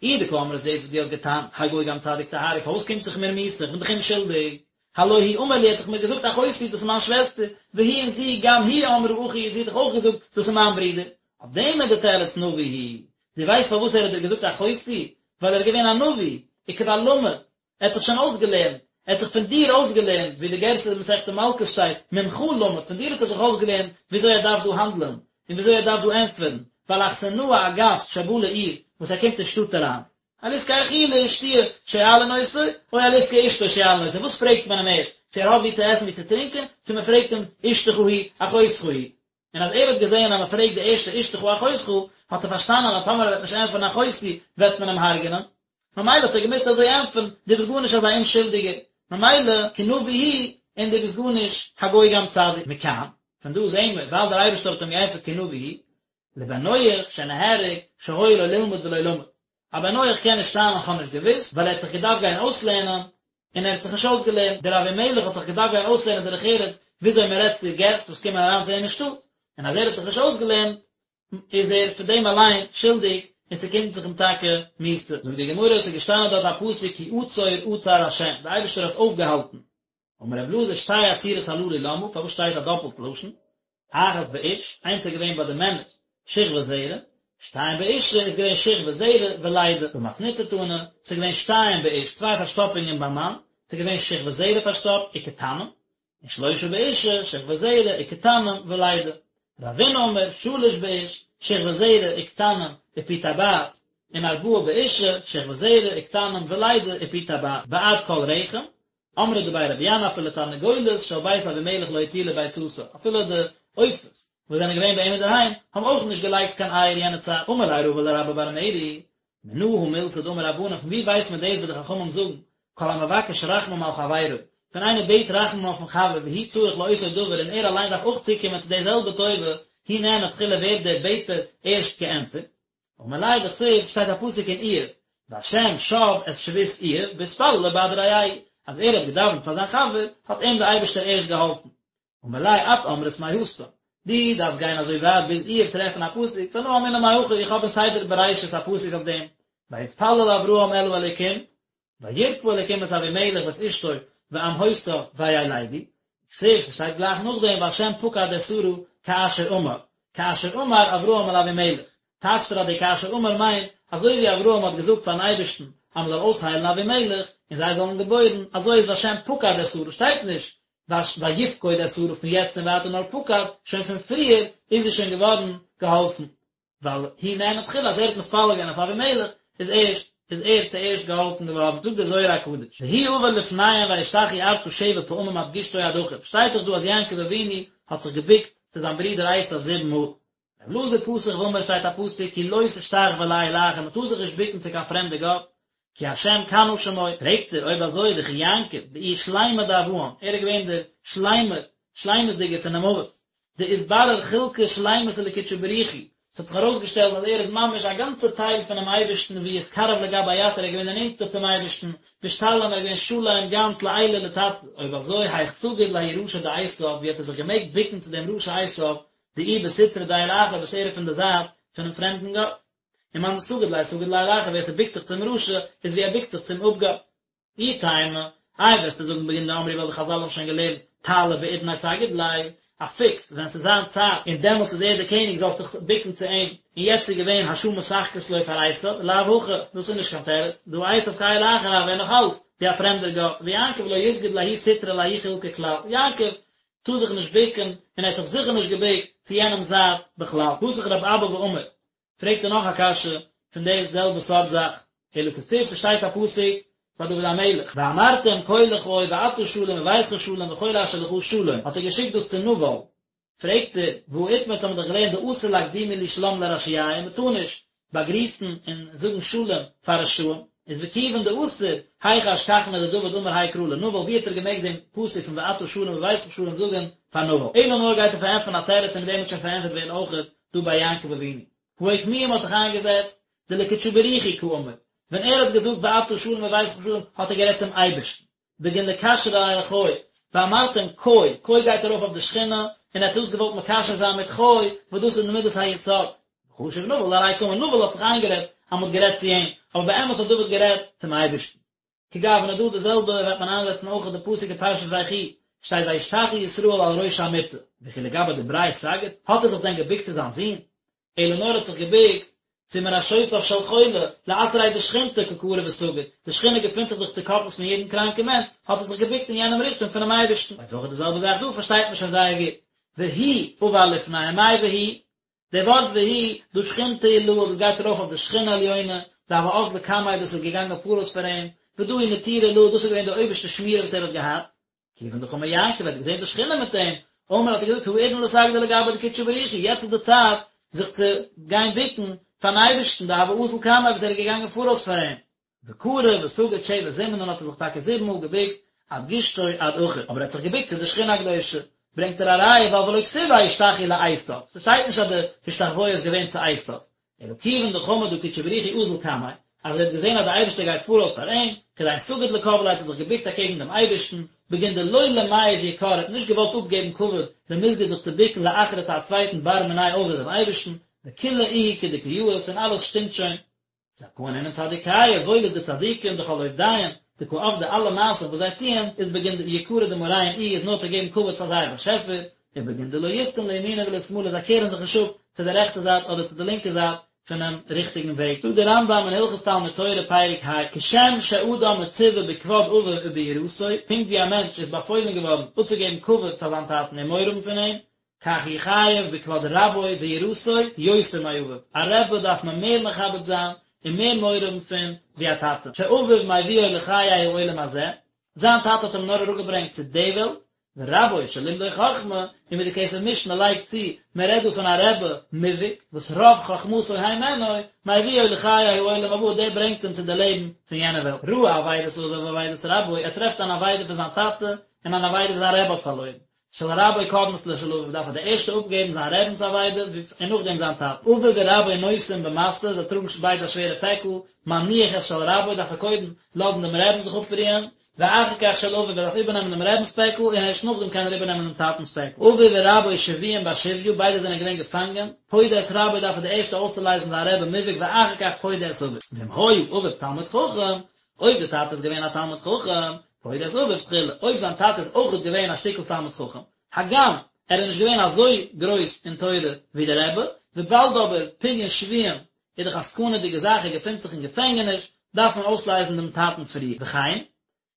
אי דקאמרת דאס וואס דו האסט געטענה'ט, הגוי גם צדיק תהרוג, פארוואס קומט זיך מיר מיתה, איך בין דאך אומשולדיג. הלא הוא אמר לי, ער האט דאך מיר געזאגט אחותי, דאס איז מיין שוועסטער, והיא און זי, גם היא אמרה אחי, זי האט דאך אויך געזאגט, דאס איז מיין ברודער. אויף דעם איז די תירוץ נביא הוא. דו ווייסט פארוואס ער האט דיר געזאגט אחותי? ווייל ער איז געווען א נביא, וכבר למד, ער האט זיך שוין אויסגעלערנט, ער האט זיך פון דיר אויסגעלערנט, ווי די גירסא אין מסכת מלקות שטייט, ממך למד, פון דיר האט ער זיך אויסגעלערנט וויאזוי ער דארף דא האנדלען, און וויאזוי ער דארף דא ענטפערן, ווייל אכסנאי א גאסט שבא לעיר, וואס ער קומט אין שטאט אריין. על עסקי אכילה ושתיה שואלין אותו, או על עסקי אשתו שואלין אותו, וואס פרעגט מען אים ערשט, צו ער האט וואו צו עסן וואו צו טרינקען, צו מען פרעגט אים אשתך היא אחותך היא. און אז ער האט געזען אז מען פרעגט די ערשטע אשתך אחותך, האט ער פארשטאנען אז טאמער ער וועט נישט ענטפערן אחותי וועט מען אים הרג'נען, ממילא האט ער געמוזט אזוי ענטפערן, דו ביסט גארנישט אזא אומשולדיגער, ממילא כי נביא הוא, און דו ביסט גארנישט הגוי גם צדיק. מכאן, פון דא זעהן מיר, ווייל דער אייבערשטער האט אים געענטפערט כי נביא הוא, לבן נח שנהרג שהיה לו ללמוד ולא למד. א בן נח קען נישט טענה'ן כ'האב נישט געוואוסט, ווייל ער האט זיך געדארפט גיין אויסלערנען, און ער האט זיך נישט אויסגעלערנט, דער אבימלך האט זיך געדארפט גיין אויסלערנען דרך ארץ וויאזוי מען רעדט צו געסט וואס קומען אריין צו אים אין שטאט, און אז ער האט זיך נישט אויסגעלערנט איז ער פון דעם אליין שולדיג און ס'קומט זיך אים טאקע מיתה. זאגט די גמרא, ס'איז געשטאנען דארט א פסוק כי עצור עצר ה', דער אייבערשטער האט אויפגעהאלטן, אמר רב אלעזר שתי עצירות הללו למה, פארוואס שטייט א דאפלט לשון, אחת באיש, איינס איז געווען ביי די מענער, שכבת זרע, שתיים באשה איז געווען שכבת זרע ולידה, במתניתא תנא, ס'איז געווען שתיים באיש, צוויי פארשטאפונגען ביים מאן, ס'איז געווען שכבת זרע פארשטאפט וקטנים, און שלושה באשה, שכבת זרע וקטנים ולידה. רבינא אמר, שלש באיש, שכבת זרע וקטנים ופי טבעת, און ארבעה באשה, שכבת זרע וקטנים ולידה ופי טבעת, בעד כל רחם, אמרי דבי רבי ינאי אפילו תרנגולת של בית אבימלך לא הטילה ביצתה, אפילו די עופות וואס זענען געווען ביי אים אינדערהיים האבן אויך נישט געלייגט קיין אייער יענע צייט, אמר ליה רבא לרבה בר מרי, מנא הא מילתא דאמור רבנן פון ווי ווייסט מען דאס וואס די חכמים זאגן, כל המבקש רחמים על חברו, ווען איינער בעט רחמים אויפן חבר והוא צריך לאותו דבר און ער אליין דארף אויך צוקומען צו די זעלבע טובה, הוא נענה תחילה ווערט דער בעטער ערשט געענטפערט. אמר ליה דכתיב, ס'שטייט א פסוק אין איוב, והשם שב את שבות איוב בהתפללו בעד רעהו, אז ער האט געדאווענט פאר זיין חבר, האט אים דער אייבערשטער ערשט געהאלפן. אמר ליה את אמרת מהתם, דו דארפסט גיין אזוי ווייט ביז איוב טרעפן א פסוק, ואנא אמינא מהכא, איך האב אין ספר בראשית א פסוק אויף דעם, ויתפלל אברהם אל האלוקים, וירפא אלוקים את אבימלך ואת אשתו ואמהותיו וילדו, וכתיב, ס'שטייט גלייך נאכדעם והשם פקד את שרה כאשר אמר, כאשר אמר אברהם אל אבימלך, טייטשט ער אז די כאשר אמר מיינט, אזוי ווי אברהם האט געזאגט פארן אייבערשטן אז מ'זאל אויסהיילן אבימלך און זיי זאלן געבוירן, אזוי איז והשם פקד את שרה, שטייט נישט ויפקוד את שרה פון יעצט און ווייטער נאר פקד, שוין פון פריער איז זי שוין געווארן געהאלפן. ווייל הוא נענה תחילה אז ער האט מתפלל געווען אויף אבימלך. איז ערשט איז ער צוערשט געהאלפן געווארן, זאגט דער זוהר הקדוש, והוא עבר לפניהם וישתחו ארצה שבע פעמים עד גושתו עד אחור, שטייט דאך דא אז יעקב אבינו האט זיך געבוקט צו זיין ברודער עשיו זיבן מאל. ר' אלעזר פתח ואמר שטייט א פסוק כי לא תשתחוה לאל אחר מען טאר זיך נישט בוקן צו קיין פרעמדע גאט, כי השם קנא שמו, פרעגט ער אויב אזוי דכי יעקב דאיהו שלימא דאבהן, ער איז געווען דער שלימער, שלימות'דיגער פון דעם אבות, דאתברר חולקא שלימתא לקודשא בריך הוא, ס'האט זיך ארויסגעשטעלט אז ער איז ממש א גאנצע טייל פונעם אייבערשטן ואיהו אתקרב לגביה יתיר ער איז געווען דער נענטסטער צום אייבערשטן, ואשתלים ער איז געווען שלם גאנץ לעילא לתתא, אויב אזוי היך סגיד לההוא רשע דעשיו ווי האט ער זיך געמעגט בוקן צו דעם רשע עשיו דאיהו בסטרא דאל אחר וואס ער איז פון די זייט פונעם פרעמדן גאט. ומאן דסגיד ליה סגיד לאל אחר ווער ס'בוקט זיך צום רשע איז ווי ער בוקט זיך צום אפגאט. אי תימא, איי וועסטו זאגן בגין דאמרי ווייל די חזל האבן שוין געלערנט טלא בעידניה סגיד ליה, א פוקס ווען ס'איז זיין צייט און דעמאלטס איז ער דער קעניג זאלסט זיך בוקן צו אים, און יעצט איז געווען השעה משחקת לו פאר עשיו, לאו הכי, דאס איז נישט קיין תירוץ, דהא עשיו כאל אחר הוה נאך אלץ ווי א פרעמדער גאט, ויעקב לא יסגוד לההוא סטרא לההוא חולקא כלל, יעקב טאר זיך נישט בוקן און ער האט זיך זיכער נישט געבוקט צו יענעם זייט בכלל. פתח רב אבא ואמר, פרעגט ער נאך א קשיא פון די זעלבע סארט זאך, אלא כתיב ס'שטייט א פסוק ביי דוד המלך, ואמרתם כה לחי ואתה שלום וביתך שלום וכל אשר לך שלום, האט ער געשיקט דאס צו נבל, פרעגט ער, והא איתמר האבן מיר דאך געלערנט דאסור לאקדומי להו שלם לרשיעיא, מ'טאר נישט באגריסן און זאגן שלום פאר רשעים, איז וכיוון דאסור, היכי אשכחניה דדוד אמר האי קרא לנבל, ווי האט ער געמעגט דעם פסוק פון ואתה שלום וביתך שלום זאגן פאר נבל? אלא נאר גייט ער פארענטפערן א תירוץ און מיט דעם וועט שוין פארענטפערט ווערן אויכעט דא ביי יעקב אבינו. הא אוקמוה מ'האט דאך איינגעזעצט דלקודשא בריך הוא קאמר, ווען ער האט געזאגט ואתה שלום וביתך שלום האט ער גערעדט צום אייבערשטן, בגין לקשרא אחי, ואמרתם כה, כה גייט ארויף אויף די שכינה, און ער האט דאס געוואלט מקשר זיין מיט חי, וואס דאס איז מידת היסוד. וחשיב נבל דעליה קאמר, נבל האט זיך איינגערעדט אז מ'האט גערעדט צו אים, אבער באמת האט דוד גערעדט צום אייבערשטן. כגוונא דא די זעלבע וועט מען איינזעצן אויך די פסוק אין פרשת ויחי, שטייט וישתחו ישראל על ראש המיטה, וכי לגבי דבריה סגיד, האט ער זיך דען געבוקט צו זיין זון? אלא נאר האט זיך געבוקט צו מראשותיו של חולה, לאתריה דשכינתא קא כרע וסגיד, די שכינה געפינט זיך דאך צוקאפנס פון יעדן קראנקן מענטש, האט ער זיך געבוקט אין יענעם ריכטונג פונעם אייבערשטן. אויך אויך די זעלבע זאך דא פארשטייט מען שוין זייער גוט. והוא עבר לפניהם מאי והוא? די ווארט והוא, דא שכינתא עילאה, דאס גייט ארויף אויף די שכינה עליונה, דהוה אזלא קמיה דאס איז געגאנגען פאראויס פאר אים, ודא הוא נטירא עילאה, דאס איז געווען די אויבערשטע שמירה וואס ער האט געהאט. כיוון דחמא יעקב האט געזען די שכינה מיט אים, אמר האט ער געזאגט האידנא לסגדא לגבי דקודשא בריך הוא, יעצט איז די צייט זיך צו גיין בוקן פארן אייבערשטן, דהוה אזיל קמיה וואס ער איז געגאנגען פאראויס פאר אים. וכרע וסגיד שבע זימנין האט ער זיך טאקע זיבן מאל געבוקט עד גושתו עד אחור, אבער ער האט זיך געבוקט צו די שכינה הקדושה, ברענגט ער א ראיה ווייל ולא כתיב וישתחו לעשו, ס'שטייט נישט אז די השתחוויה איז געווען צו עשו, אלא כיוון דחמא דהא קודשא בריך הוא אזיל קמיה, אז ער האט געזען אז דער אייבערשטער גייט פאראויס פאר אים, כדין סגיד לקבליה האט ער זיך געבוקט אקעגן דעם אייבערשטן, בגין דלא למיהב יקר ער האט נישט געוואלט אפגעבן כבוד למסגד זיך צו בוקן לאחרא צו א צווייטן בר מיניה אויסער דעם אייבערשטן, וכולא איהו כדקא יאות און אלעס שטימט שוין. זכאין אינון צדיקיא, וואויל איז די צדיקים דכל עובדיהון, דקא עבדי אלע מעשים וואס זיי טוען, איז בגין יקרא דמאריהון איהו איז נאר צו געבן כבוד פאר זייער באשעפער, ובגין דלא יסטון לימינא ולשמאלא זיי קערן זיך נישט אפ צו די רעכטע זייט אדער צו די לינקע זייט פונעם ריכטיגן וועג. זאגט דער רמב"ם אין הלכות תלמוד תורה פרק ה, כשם שאדם מצווה בכבוד אביו וביראתו, פונקט ווי א מענטש איז באפוילן געווארן אפצוגעבן כבוד פאר זיין טאטן און מורא האבן פון אים, כך הוא חייב בכבוד רבו ויראתו יותר מאביו, א רבי דארף מען מער מכבד זיין און מער מורא האבן פון ווי א טאטע, שאביו מביאו לחיי העולם הזה, זיין טאטע האט אים נאר אראפגעברענגט צו די וועלט, ורבו שלימדו חכמה, און ווי די כסף משנה לייגט צו, מען רעדט דא פון א רבי מובהק, וואס רוב חכמתו הימנו, מביאו לחיי העולם הבא, דער ברענגט אים צו די לעבן פון יענע וועלט. ראה אבידת אביו ואבידת רבו, ער טרעפט אן אבידה פון זיין טאטע און אן אבידה וואס זיין רבי האט פארלוירן, של רבו קודמת לשל אביו דארף ער די ערשטע אפגעבן זיין רבינ'ס אבידה און נאכדעם זיין טאטע. אביו ורבו נושאים במשא, זיי טראגן ביידע א שווערע פעקל, מניח את של רבו דארף ער קודם לאזן דעם רעבן זיך אפרוען, ואחר כך של אביו ער דארף איבערנעמען דעם רבינ'ס פעקל און ערשט נאכדעם קען ער איבערנעמען דעם טאטנ'ס פעקל. אביו ורבו שבויים בשביה, ביידע זענען געווען געפאנגען, פודה את רבו דארף ער די ערשטע אויסצולייזן זיין רבי מובהק ואחר כך פודה את אביו. ואם היה אביו תלמיד חכם, אויב די טאטע איז געווען א תלמיד חכם, פודה את אביו תחילה, אויב זיין טאטע איז אויכעט געווען א שטיקל תלמיד חכם, הגם ער איז נישט געווען אזוי גרויס אין תורה ווי דער רבי, וויבאלד אבער פדיון שבויים איז דאך א סכנה'דיגע זאך, ער געפינט זיך אין געפענגעניש, דארף מען אויסלייזן דעם טאטן פריער. וכן,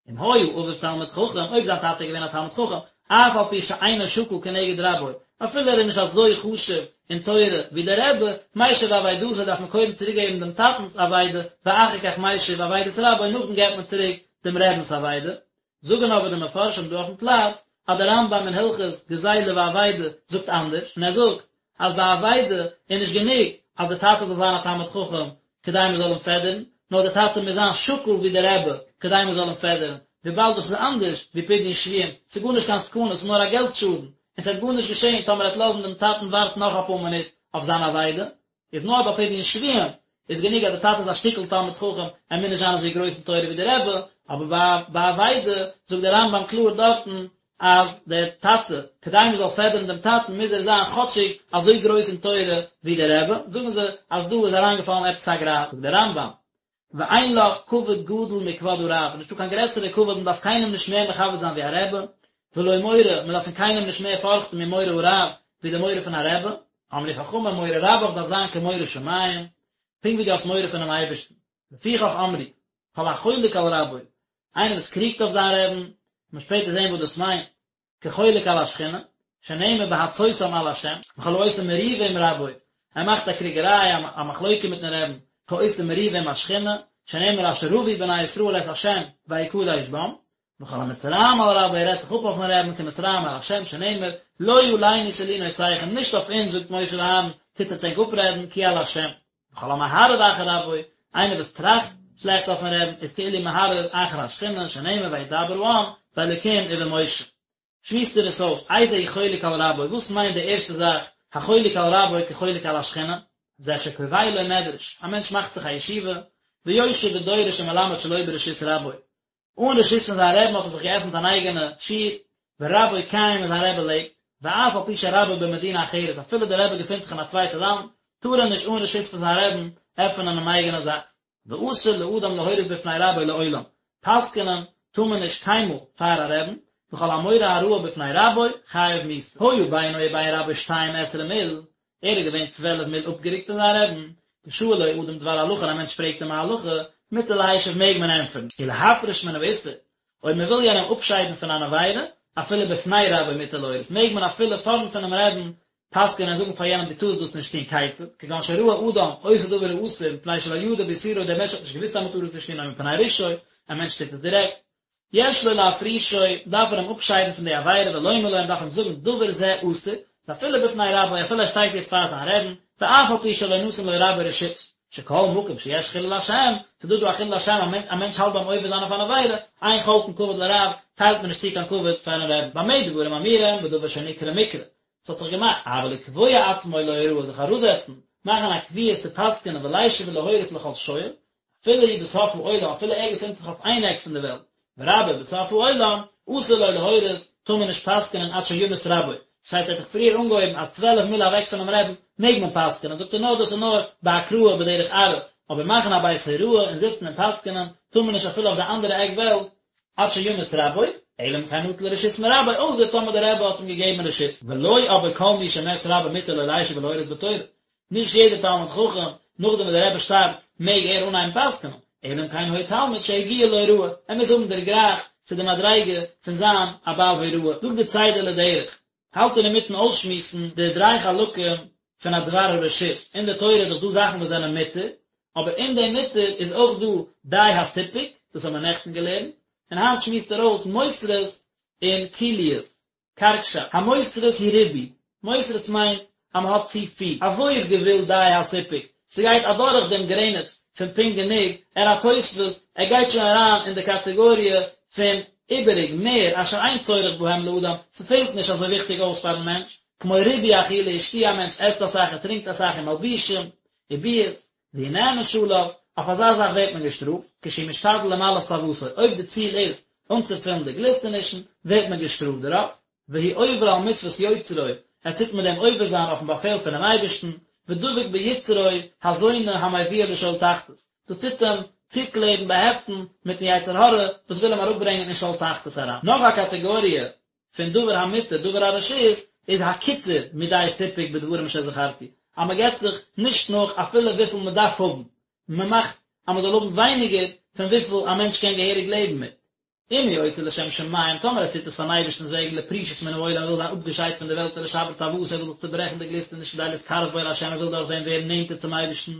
אם היה אביו תלמיד חכם, אויב זיין טאטע איז געווען א תלמיד חכם, אף על פי שאינו שקול כנגד רבו, אפילו ער איז נישט אזוי חשוב אין תורה ווי דער רבי, משיב אבידתו דארף מען קודם צוריק געבן דעם טאטנ'ס אבידה, ואחר כך משיב אבידת רבו נאכדעם געבט מען צוריק דעם רבינ'ס אבידה. זאגן אבער די מפרשים דא אויפן פלאץ אז דער רמב"ם אין הלכות גזילה ואבידה זאגט אנדערש, און ער זאגט אז ביי אבידה איז נישט גענוג אז דער טאטע זאל זיין א תלמיד חכם כדי מען זאל אים פעדערן, נאר דער טאטע מוז זיין שקול ווי דער רבי כדי מען זאל אים פעדערן, וויבאלד דאס איז אנדערש ווי פדיון שבויים, ס'איז גארנישט קיין סכנה, ס'איז נאר א געלט שאדן, און ס'וועט גארנישט געשען טאמער ער וועט לאזן דעם טאטן ווארטן נאך אפאר מינוט אויף זיין אבידה, איז נאר ביי פדיון שבויים איז גענוג אז די טאטע איז א שטיקל תלמיד חכם, ער מוז נישט זיין אזוי גרויס אין תורה ווי די רבי, אבער ביי ביי אבידה זאגט דער רמב"ם קלאר דארטן אז דער טאטע, כדי מען זאל פעדערן דעם טאטן מוז ער זיין כאטשיג אזוי גרויס אין תורה ווי דער רבי, זאגן זיי אז דא איז אריינגעפאלן עפעס א גרייז, זאגט דער רמב"ם, ואין לך כבוד גדול מכבוד הרב, נישטא קיין גרעסערע כבוד, מען דארף קיינעם נישט מער מכבד זיין ווי א רבי, ולא מורא, מען דארף פון קיינעם נישט מער פארכטן ממורא הרב, ווי די מורא פון א רבי, אמרו חכמים מורא רבך דארף זיין כמורא שמים, פונקט ווי דו האסט מורא פונעם אייבערשטן. לפיכך אמרו, כל החולק על רבו, איינער וואס קריגט אויף זיין רעבן, מ'וועט שפעטער זען וואס דאס מיינט, כחולק על השכינה, שנאמר בהצותם על השם, וכל העושה מריבה עם רבו, ער מאכט א קריגעריי, א מחלוקה מיטן רעבן, כעושה מריבה עם השכינה, שנאמר אשר רבו בני ישראל את השם ויקדש בם, וכל המתרעם על רבו, ער רעדט זיך אפ אויפן רעבן, כמתרעם על השם, שנאמר, לא עלינו תלונותיכם, נישט אויף אונז, זאגט משה ואהרן, טוט עטס ענק אפרעדן, כי על השם. וכל המהרהר אחר רבו, איינער וואס טראכט שלעכט אויפן רעבן, איז כאילו מהרהר אחר השכינה, שנאמר וידבר העם באלקים ובמשה. שמועסט ער עס אויס, איזהו חולק על רבו, וואס מיינט די ערשטע זאך, החולק על רבו כחולק על השכינה? זה שקובע לו מדרש, א מענטש מאכט זיך א ישיבה, ויושב ודורש ומלמד שלא ברשות רבו, אן רשות פון זיין רעבן האט ער זיך געעפנט אן אייגענע שיעור, ורבו קיים און זיין רבי לעבט, ואף על פי שרבו במדינה אחרת, אפילו דער רבי געפינט זיך אין א צווייטע לאנד, טאר ער נישט אן רשות פון זיין רעבן עפענען אן אייגענע זאך. ואסור לאדם להורות בפני רבו לעולם, פסק'נען טאר מען נישט קיינמאל פאר א רעבן, וכל המורה הוראה בפני רבו חייב מיתה. היה בינו ובין רבו שתים עשרה מיל, ער איז געווען 12 מיל אפגערוקט פון זיין רעבן, ושאלו אדם דבר הלכה און א מענטש פרעגט אים א הלכה, מותר להשיב מעג מען ענטפערן, ולהפריש מן האיסור, אויב מען וויל יענעם אפשיידן פון אן עבירה, אפילו בפני רבו מותר להורות, מעג מען אפילו פארנט פונעם רעבן פסק'ענען און זאגן פאר יענעם דו טארסט דאס נישט טון, כיצד, כגון שראה אדם עושה דבר האסור מפני שלא ידע באיסורו דער מענטש האט נישט געוואוסט אז מען טאר עס נישט טון או מפני רשעו, א מענטש טוט עס דירעקט, יש לו להפרישו, דארף ער אים אפשיידן פון די עבירה ולומר לו, און דארף אים זאגן דבר זה אסור, ואפילו בפני רבו, אפילו ער שטייט יעצט פאר זיין רעבן, ואף על פי שלא נתן לו רבו רשות, שכל מקום שיש חילול השם, ס'איז דא דא א חילול השם, א מענטש האלט ביים עובר זיין אויף אן עבירה, אין חולקין כבוד לרב, טיילט מען נישט צו קיין כבוד פארן רעבן, במה דברים אמורים, בדבר שנקרה מקרה, ס'האט זיך געמאכט, אבל לקבוע עצמו להוראה, זיך אראפזעצן, מאכן א קביעות צו פסק'נען ולישב ולהורות לכל שואל, אפילו הוא בסוף העולם, אפילו ער געפינט זיך אויף איין עק פון די וועלט, ורבו בסוף העולם, אסור לו להורות, טאר מען נישט פסק'נען עד שימות רבו. דאס הייסט ער האט דאך פריער אנגעהויבן אז 12 מיל אוועק פונעם רעבן מעג מען פסק'נען, זאגט ער נאר דאס איז נאר בהקראה בדרך עראי, אבער מאכן א בית הוראה און זיצן און פסק'נען טאר מען נישט אפילו אויף די אנדערע עק וועלט, עד שימות רבו, אלא אם כן נטל רשות מרבו, אויסער טאמער דער רבי האט אים געגעבן רשות. ולא אבער כל מי שמת רבו מותר לו לישב ולהורות בתורה, נישט יעדער תלמיד חכם, נאכדעם וואס דער רבי שטארבט, מעג ער אנהייבן פסק'נען, אלא אם כן היה תלמיד שהגיע להוראה, ער מוז האבן דערגרייכט צו די מדריגה פון זיין א בעל הוראה. זאגט דער צידה לדרך, האלט ער אינמיטן אויסשמועסן די דריי חלקים פון א דבר הרשות, אין די תורה איז דאך דא זאכן וואס זענען מותר, אבער אין דעם מותר איז אויך דא די הסיפוק, דאס האבן מיר נעכטן געלערנט, און היינט שמועסט ער אויס מותרות און כוליות. קארגשאפט, המותרות הוא ריבוי, מותרות מיינט אז מען האט צו פיל, עבור גבול די הסיפוק, ס'גייט אדורך דעם גרעניץ פון פונקט גענוג, אל התוספות, ער גייט שוין אריין אין די קאטעגאריע פון איבעריג, מער, אשר אין צורך בהם לאדם, ס'פעלט נישט אזוי וויכטיג אויס פארן מענטש, כמו ריבוי אכילה ושתיה, א מענטש עסט אסאך ער טרינקט אסאך ומלבושים, וביאות, והוא נענש עליו, אויף אזא זאך ווערט מען געשטראפט, כשהוא משתדל למלאות תאוותו, אויב די ציל איז אנצופילן די גליסטענישן, ווערט מען געשטראפט דערויף, והוא עובר על מצוות יוצרו, ער טוט מיט דעם עובר זיין אויפן באפעל פונעם אייבערשטן, ודבק ביצרו הזונה המביאו לשאול תחתית, דאס טוט אים צוקלעבן, באהעפטן, מיטן יצר הרע וואס וויל אים אראפברענגען אין שאול תחתית אריין. נאך א קאטעגאריע פון דבר המותר דבר הרשות איז הקיצור מדי סיפוק בדברים שזכרתי, אז מען געבט זיך נישט נאך אפילו וויפיל מען דארף האבן, מען מאכט אז מען זאל האבן ווייניגער פון וויפיל א מענטש קען געהעריג לעבן מיט. אם הוא עושה לשם שמים, טאמער ער טוט עס פארן אייבערשטנ'ס וועגן, לפרישות מן העולם, ער וויל זיין אפגעשיידט פון די וועלט ולשבר תאוותו, ער וויל זיך צוברעכן די גליסטעניש כדי להתקרב בו להשם, ער וויל דורך דעם ווערן נענטער צום אייבערשטן,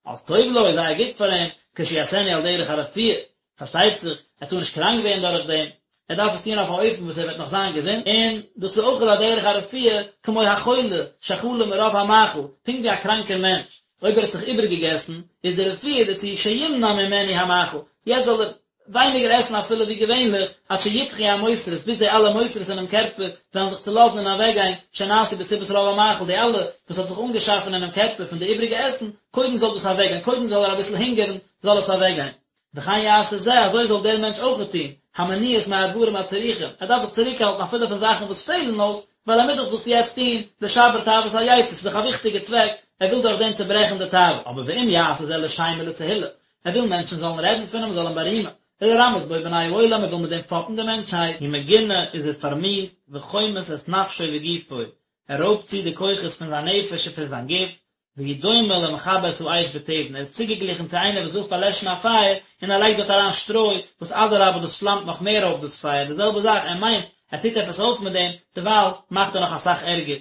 אז טוב לו, איז זייער גוט פאר אים, כשיעשנו על דרך הרפואה, פארשטייט זיך, ער טאר נישט קראנק ווערן דורך דעם, ער דארף עס טון אויף א אופן וואס ער וועט נאך זיין געזונט, און דאס איז אויך על דרך הרפואה, כמו החולה שחלה מרוב המאכל, פונקט ווי א קראנקער מענטש, אויב ער האט זיך איבערגעגעסן, איז די רפואה דערצו שימנע ממנו המאכל, יעצט זאל ער ווייניגער עסן אפילו ווי געווענליך, עד שידחו המותרות, ביז די אלע מותרות אינעם קערפער וועלן זיך צולאזן און אוועקגיין, שנעשו בסיבת רוב המאכל, די אלע וואס האט זיך אנגעשאפן אינעם קערפער פון די איבריגע עסן, קודם זאל דאס אוועקגיין, קודם זאל ער אביסל הונגערן, זאל עס אוועקגיין. וכן יעשה זה, אזוי זאל דער מענטש אויכעט טון, המניעות מהדברים הצריכים, ער דארף זיך צוריקהאלטן אפילו פון זאכן וואס פעלן אויס, ווייל ער מוז דאך דאס יעצט טון, לשבר תאוות היצר, ס'איז דאך א וויכטיגע צוועק, ער וויל דורך דעם צוברעכן די תאווה. אבער ואם יעשה זה לשם ולתהילה, ער וויל מענטשן זאלן רעדן פון אים, זאלן אים בארימען, ולרמות בו בני העולם, ער וויל מיט דעם פאפן די מענטשהייט. הוא מגונה איז ער פארמיאוסט, וחומס את נפשו וגופו, ער רויבט צו די כוחות פון זיין נפש און פון זיין גוף, והוא דומה למכבה את האש בתבן, ער איז צוגעגליכן צו איינער וואס וויל פארלעשן א פייער, און ער לייגט דארט אריין שטרוי, וואס אדרבה דאס פלאמט נאך מער אויף דאס פייער, די זעלבע זאך, ער מיינט ער טוט עפעס אויף מיט דעם, דערווייל מאכט ער נאך אסאך ערגער.